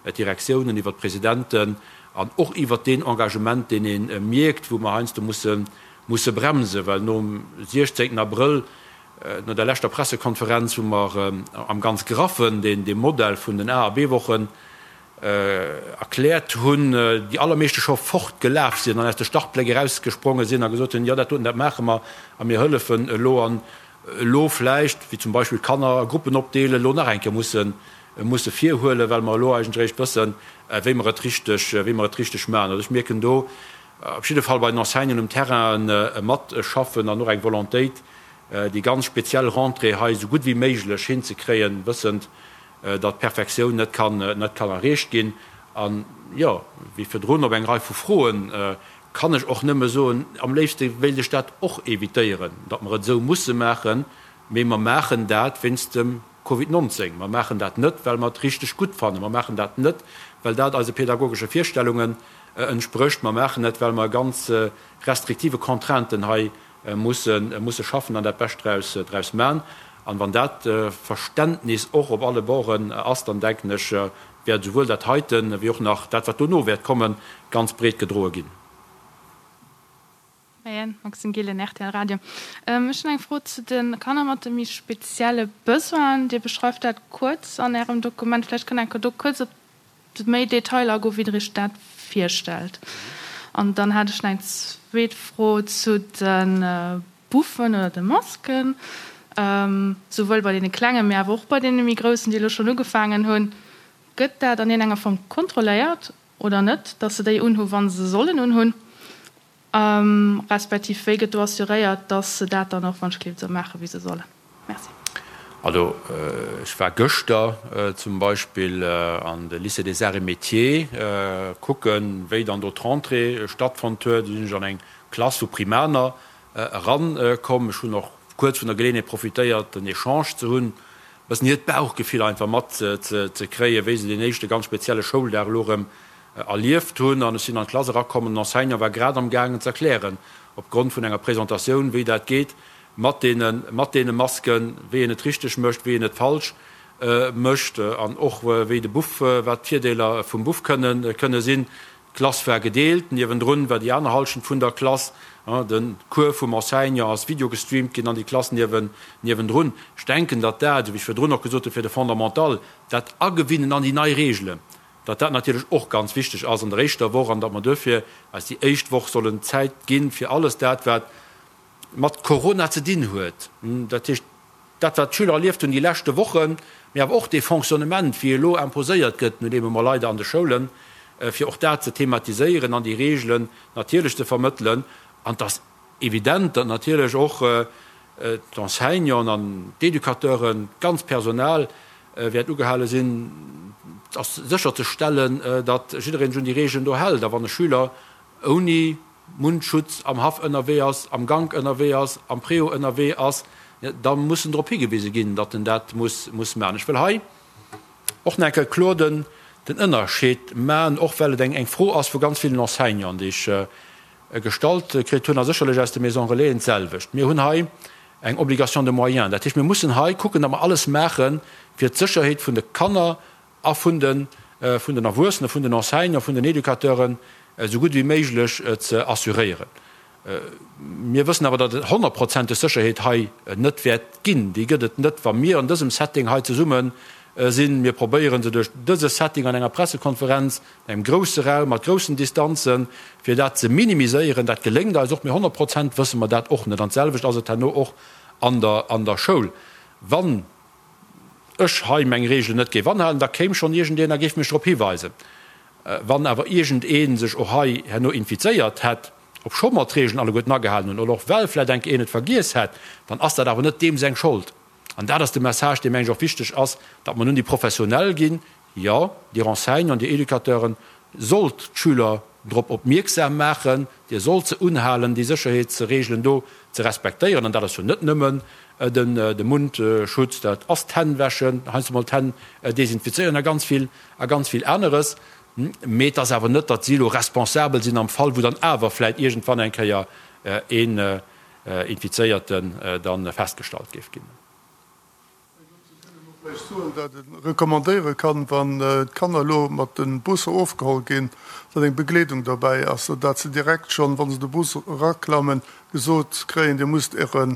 d'Direktiounen, iwwert d'Presidenten. An och iwwert deen Engagement, deen ee mierkt, wou mer heiansdo musse musse bremsen, well nom 16 Abrëll, no der leschter Pressekonferenz, wou mer am ganz Graffen deen dee Modell vun den A a B-Wochen erkläert hunn, déi allermeeschte scho fortgelaf sinn an aus de Startbléck erausgespronge sinn a gesot hunn, jo dat doten, dat maache mer a mir hëllefen elo. An elo vläicht, wéi zum Beispill d'Kanner a Gruppen opdeelen, elo nach eng Kéier musse musse virhuelen, well mer elo eigentlech eréischt wëssen, wéi mer et richteg, wéi mer et richteg maachen. Also ech mierken do op jidde Fall bei den Enseignanten um Terrain e Matschaffen an och eng Volontéit, déi ganz speziell Rentrée hei esou gutt wéi méiglech hinzekréien, wëssend, datt d'Perfektioun net kann, net kann erreecht ginn. An, jo, wéi virdrun op eng Rei vu Froen kann ech och nëmme soen, am léifste wéilt ech dat och évitéieren, datt mer et esou musse maachen, mee mer maachen dat wéinst dem Covid 19. Mer maachen dat net, well mer et richteg gutt fannen. Mer maachen dat net, well dat eise pedagogesche Virstellungen entsprécht. Mer maachen et, well mer ganz restriktive Contrainten hei musse schaffen an dat Bescht draus maachen. An wann dat Verständnis och op alle Borden ass, dann denken ech, wäert esouwuel dat heiten, wéi och nach dat, wat dono wäert kommen, ganz breet gedroe ginn. Moien, Maxime Gillen, rtl Radio. Ech hunn eng Fro zu de Kanner mat de méi spezielle Besoinen. Dir beschreift dat kuerz an Ärem Dokument. Vläicht kënnt Der enker do kuerz op méi Detailer agoen, wéi Der Iech dat virstellt. An dann hat ech nach eng zweet Fro zu de Buffen oder de Masken, souwuel bei deene Klengen, mee awer och bei deene méi Groussen, déi elo schonn ugefaangen hunn. Gëtt dat an iergendenger Form kontrolléiert oder net, dass se déi unhu wa se sollen unhunn? Respektiv wéi gëtt do assuréiert, dass se dat dann och wann ech gleeft esou maachen, wéi se sollen? Merci. Also ech war gëschter zum Beispill an de Lycée des Arts et Métiers kucken, wéi dann do d'Rentrée stattfonnt huet. Do sinn ech an eng Klass vu Primaner erankomm. Ech hunn och kuerz vun der Geleeënheet profitéiert, en Echange ze hunn, e bëssen hiert Bauchgefill einfach mat ze kréien, wéi se deen éischte ganz spezielle Schouldag elo erëm erlieft hunn. An ech sinn an d'Klass erakomm an den Enseignant war grad am gaangen ze erklären, opgrond vun enger Presentatioun, wéi dat geet mat deene, mat deene Masken, wéi een et richteg mécht, wéi een et falsch mécht an och wéi de Buff, wat d'Virdeeler vum Buff kënnen, kënne sinn. D'Klass war gedeelt, niewendrun war déi aner Hallschent vun der Klass. De Cours vum Enseignant ass videogestreamt ginn an déi Klass niewen, niewendrun. Ech denken, datt dat, esou wéi ech virdrun och gesot hunn, fir de Fondamental, dat Agewinnen an déi nei Regelen, datt dat natierlech och ganz wichteg ass an der éischter Woch an datt mer duerfir eis déi éischt Woch sollen Zäit ginn, fir alles dat, wat mat Corona ze dinn huet, dat heescht dat, wat d'Schüler erlieft hunn déi leschte Wochen, mee awer och dee Fonctionnement, wéi e lo imposéiert gëtt, nun eemol leider an de Schoulen, fir och dat ze thematiséieren an déi Reegelen natierlech ze vermëttelen. An et ass evident, datt natierlech och d'Enseignanten an d'Educateuren, d'ganzt Personal wäert ugehale sinn, sécherzestellen, datt jiddereen sech un déi Reegelen do hält. A wann e Schüler ouni Mundschutz am Haff ënnerwee ass, am Gank ënnerwee ass, am Préau ënnerwee ass, da muss en drop higewise ginn, datt en dat muss maachen. Ech wëll hei och nach eng Kéier kloer den Ënnerscheed maachen, och well et eng Fro ass vu ganz villen Enseignanten, déi ech gestallt kritt hunn, a sécherlech aus de Maisons Relaisen d'selwecht. Mir hunn hei eng Obligation de moyens. Dat heescht, mir mussen hei kucken, datt mer alles maachen, fir d'Sécherheet vun de Kanner a vun de vun den Erwuessenen, vun den Enseignanten, vun den Educateuren esou gutt ewéi méiglech ze assuréieren. Mir wëssen awer, datt et honnertprozenteg Sécherheet hei net wäert ginn. Déi gëtt et net, wa mir an dësem Setting hei zesumme sinn. Mir probéiere se duerch dëse Setting an enger Pressekonferenz, an engem grousse Raum, mat groussen Distanzen, fir dat ze minimiséieren. Dat geléngt eis och, mee 100% wësse mer dat och net. An d'selwecht ass et herno och an der an der Schoul. Wann ech hei meng Reegelen net géif anhalen, da kéim schonn iergendeen a géif mech drop hiweisen. Wann awer iergendee sech och hei herno infizéiert hätt, obscho mer d'Reegelen alleguerten agehalen hunn, oder och well vläicht enk een et vergiess hätt, dann ass dat awer net deem seng Schold. An dat ass de Message, dee meng ech och wichteg ass, datt mer nun déi Professionell ginn, jo, Dir Enseignanten, Dir Educateuren sollt d'Schüler drop opmierksam maachen, Dir sollt se unhalen, déi Sécherheetsreegelen do ze respektéieren. An dat ass jo net nëmmen de Mundschutz, dat ass d'Hänn wäschen, heiansdo mol d'Hänn desinfizéieren a ganz vill, a ganz vill aneres. Mee et ass awer net, datt si elo responsabel sinn am Fall, wou dann awer vläicht iergendwann eng Kéier een Infizéierten da festgestallt géif ginn. Vläicht soen, dat e recommandéiere kann, wann d'Kanner elo mat de Busser ofgeholl ginn, datt eng Begleedung derbäi ass, sou dat se direkt schonn, wa se de Bus eraklammen, gesot kréien, Dir musst Äre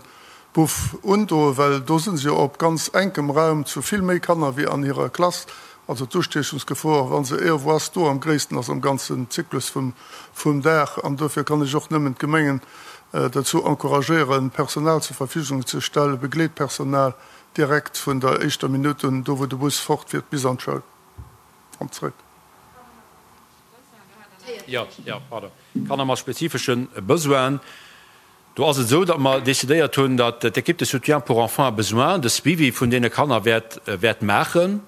Buff undoen, well do si se jo op ganz enkem Raum zu vill méi Kanner wéi an hirer Klass. Also d'Ustiechungsgefor, wa se iergendwou ass, do am gréissten ass am ganzen Zyklus vum Dag. An dofir kann ech och nëmmen d'Gemengen dozou encouragéieren, Personal zur Verfügung ze stellen, Begleetpersonal, direkt vun der éischter Minutt un, do wou de Bus fortfiert, bis an d'Schoul an zrëck. Jo, jo, pardon. Kanner mat spezifesche Besoinen, do ass et esou, datt mer decidéiert hunn, datt d'Équipe de soutien pour enfants à besoins de Suivi vun deene Kanner wäert, wäert maachen.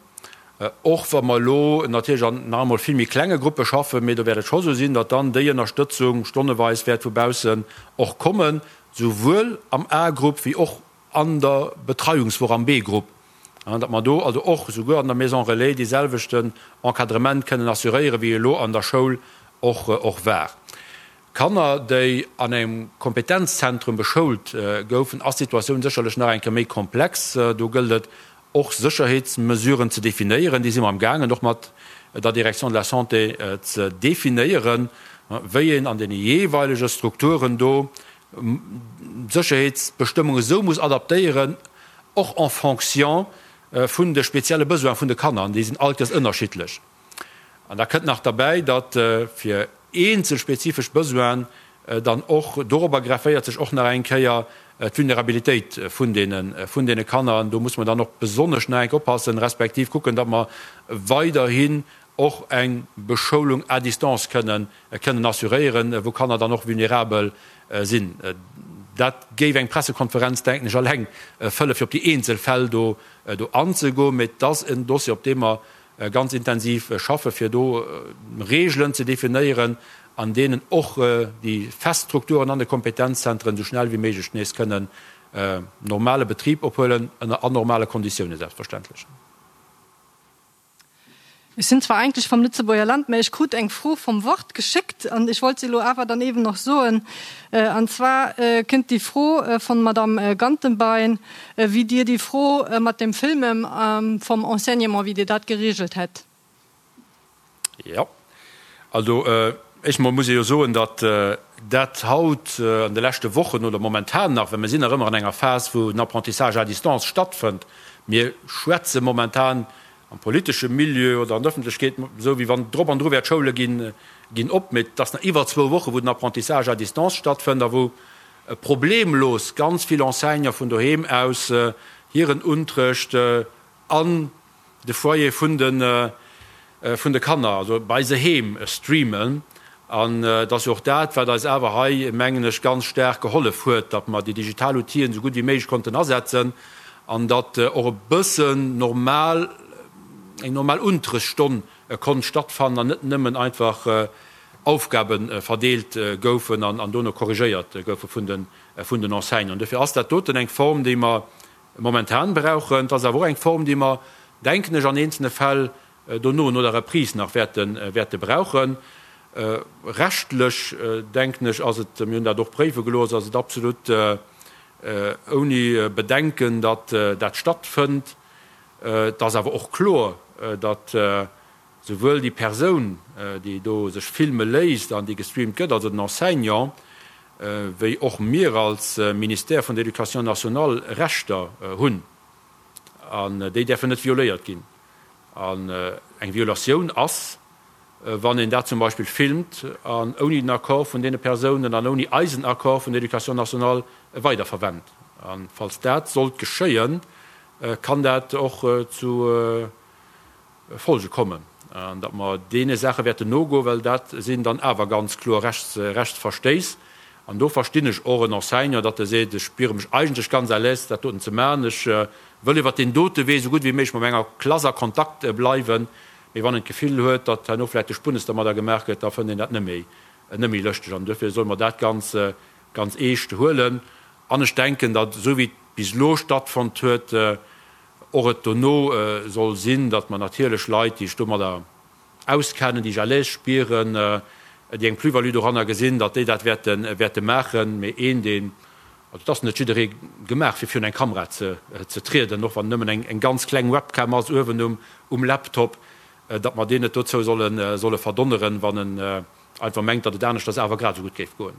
Och wa mer elo natierlech an nach emol vill méi klenge Gruppe schaffen, mee do wäert et scho sou sinn, datt dann déi Ënnerstëtzung stonneweis wäert vu baussen och kommen, souwuel am A-Grupp wéi och an der Betreiungswoch am B-Grupp, datt mer do also och souguer an der Maison relais dee selwechten Encadrement kënnen assuréieren, wéi elo an der Schoul och och war. Kanner, déi an engem Kompetenzzentrum beschoult goufen, ass d'Situatioun sécherlech nach eng Kéier méi komplex. Do gëllt et och Sécherheetsmesuren ze definéieren. Déi si mer am gaangen och mat der Direction de la Santé ze definéieren, wéi een an deene jeeweilege Strukturen do d'Sécherheetsbestëmmung esou muss adaptéieren, och en fonction vun de spezielle Besoine vun de Kanner, an déi sinn all Kéiers ënnerschiddlech. An da kënnt nach derbäi, datt fir eenzel spezifesch Besoinen dann och dorobber grefféiert sech och nach eng Kéier d'Vulnerabilitéit vun deene vun deene Kanner. An do muss mer dann och besonnesch nach eng Kéier oppassen, respektiv kucken, datt mer weiderhin och eng Beschoulung à distance kënnen kënnen assuréieren, wou Kanner dann och vulnerabel sinn. Dat géif eng Pressekonferenz, denken ech, alleng fëlle fir op déi eenzel Fäll do anzegoen. Mee et ass en Dossier, op deem mer ganz intensiv schaffen, fir do Regeln ze definéieren, an deenen och déi fest Strukturen an de Kompetenzzentren esou schnell wéi méiglech nees kënnen normale Betrib ophuelen, ënner anormale Konditiounen selbstverständlech. Ech sinn zwar eigentlech vom Lëtzebuerger Land, mä ech krut eng Fro vom Wort geschéckt an ech wollt se elo awer dann eben och soen. An zwar kënnt déi Fro von Madame Gantenbein, wéi Dir déi Fro mat dem Filmen vom Enseignement, wéi Dir dat geregelt hätt. Jo, also éischt emol muss ee jo soen, datt dat haut an de leschte Wochen oder momentan nach, well mir sinn nach ëmmer an enger Phas, wou den Apprentissage à distance stattfënnt, mir schwätze momentan am politesche Milieu oder an der Ëffentlechkeet esou, wéi wann drop an dru wär, d'Schoule ginn ginn op, mee et ass nach iwwer zwou Woche wou den Apprentissage à distance stattfënnt a wou problemlos ganz vill Enseignante vun doheem aus hiren Unterrecht an de Foyer vun de vun de Kanner, also bei se heem streamen. An et ass jo och dat, wat eis awer hei, mengen ech, ganz staark gehollef huet, datt mer déi digital Outiller esou gutt wéi méiglech konnten asetzen an datt och e bëssen normal, eng normal Unterrechtsstonn konnt stattfannen an net nëmmen einfach Aufgabe verdeelt goufen an dono korrigéiert goufe vun den vun den Enseignanten. Dofir ass dat doten eng Form, déi mer momentan brauchen. Et ass awer och eng Form, déi mer, denken ech, an eenzelne Fäll dono, no der Reprise nach wäerte wäerte brauchen. Rechtlech, denken ech, ass et, mir hunn dat och préiwe gelooss, ass et absolut ouni Bedenken, datt dat stattfënnt. Et ass awer och kloer, datt souwuel déi Persoun, déi do sech filme léisst an déi gestreamt gëtt, also den Enseignant, wéi och mir als Ministère vun der Éducation nationale Rechter hunn. An déi däerfen net violéiert ginn. An eng Violatioun ass, wann een dat zum Beispill filmt an ouni den Accord vun deene Persounen an ouni eisen Accord vun der Éducation nationale weiderverwennt. A falls dat sollt geschéien, kann dat och zu Folge kommen, an datt mer deene Saache wäerten nogoen, well dat sinn dann awer ganz kloer Rechtsverstéiss. An do verstinn ech och en Enseignant, datt e seet, ech spiere mech eigentlech ganz à l'aise, dat doten ze maachen, ech wëll iwwert deen dote Wee esou gutt wéi méiglech mat menger Klass a Kontakt bleiwen. Mee wann en d'Gefill huet, datt herno vläicht de Spunnes dermadder gemaach gëtt, da fënnt een dat net méi, net méi lëschteg. An duerfir solle mer dat ganz, ganz eescht huelen. An ech denken, datt esou wéi et bis elo stattfonnt huet, och et dono soll sinn, datt mer natierlech Leit, déi sech domadder auskennen, déi sech à l'aise spieren, déi eng Plus-value doranner gesinn, datt déi dat wäerte, wäerte maachen. Mee een, deen. Also et ass net jidderee gemaach fir virun eng Kamera ze trieden, och wann nëmmen eng ganz kleng Webcam ass uewen um Laptop, datt mer deen net dozou solle verdonneren, wann en einfach mengt, datt et aneschters awer grad esou gutt géif goen.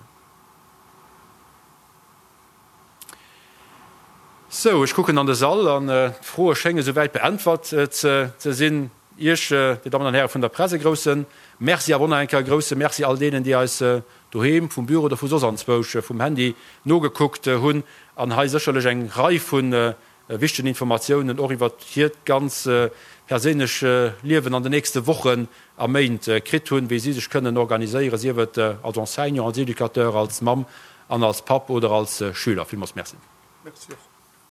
Sou, ech kucken an de Sall an d'Froe schénge souwäit beäntwert ze sinn. Iech, Dir Dammen an Häre vun der Press, e grousse Merci, awer och nach eng Kéier e grousse Merci all deenen, déi eis doheem, vum Büro oder vu soss anzwousch vum Handy nogekuckt hunn an hei sécherlech eng Rei vu wichtegen Informatiounen och iwwert hiert ganz perséinlech Liewen an den nächste Wochen a Méint kritt hunn, wéi si sech kënnen organiséieren, sief et als Enseignant, als Educateur, als Mamm an als Papp oder als Schüler. Villmools Merci. Merci och.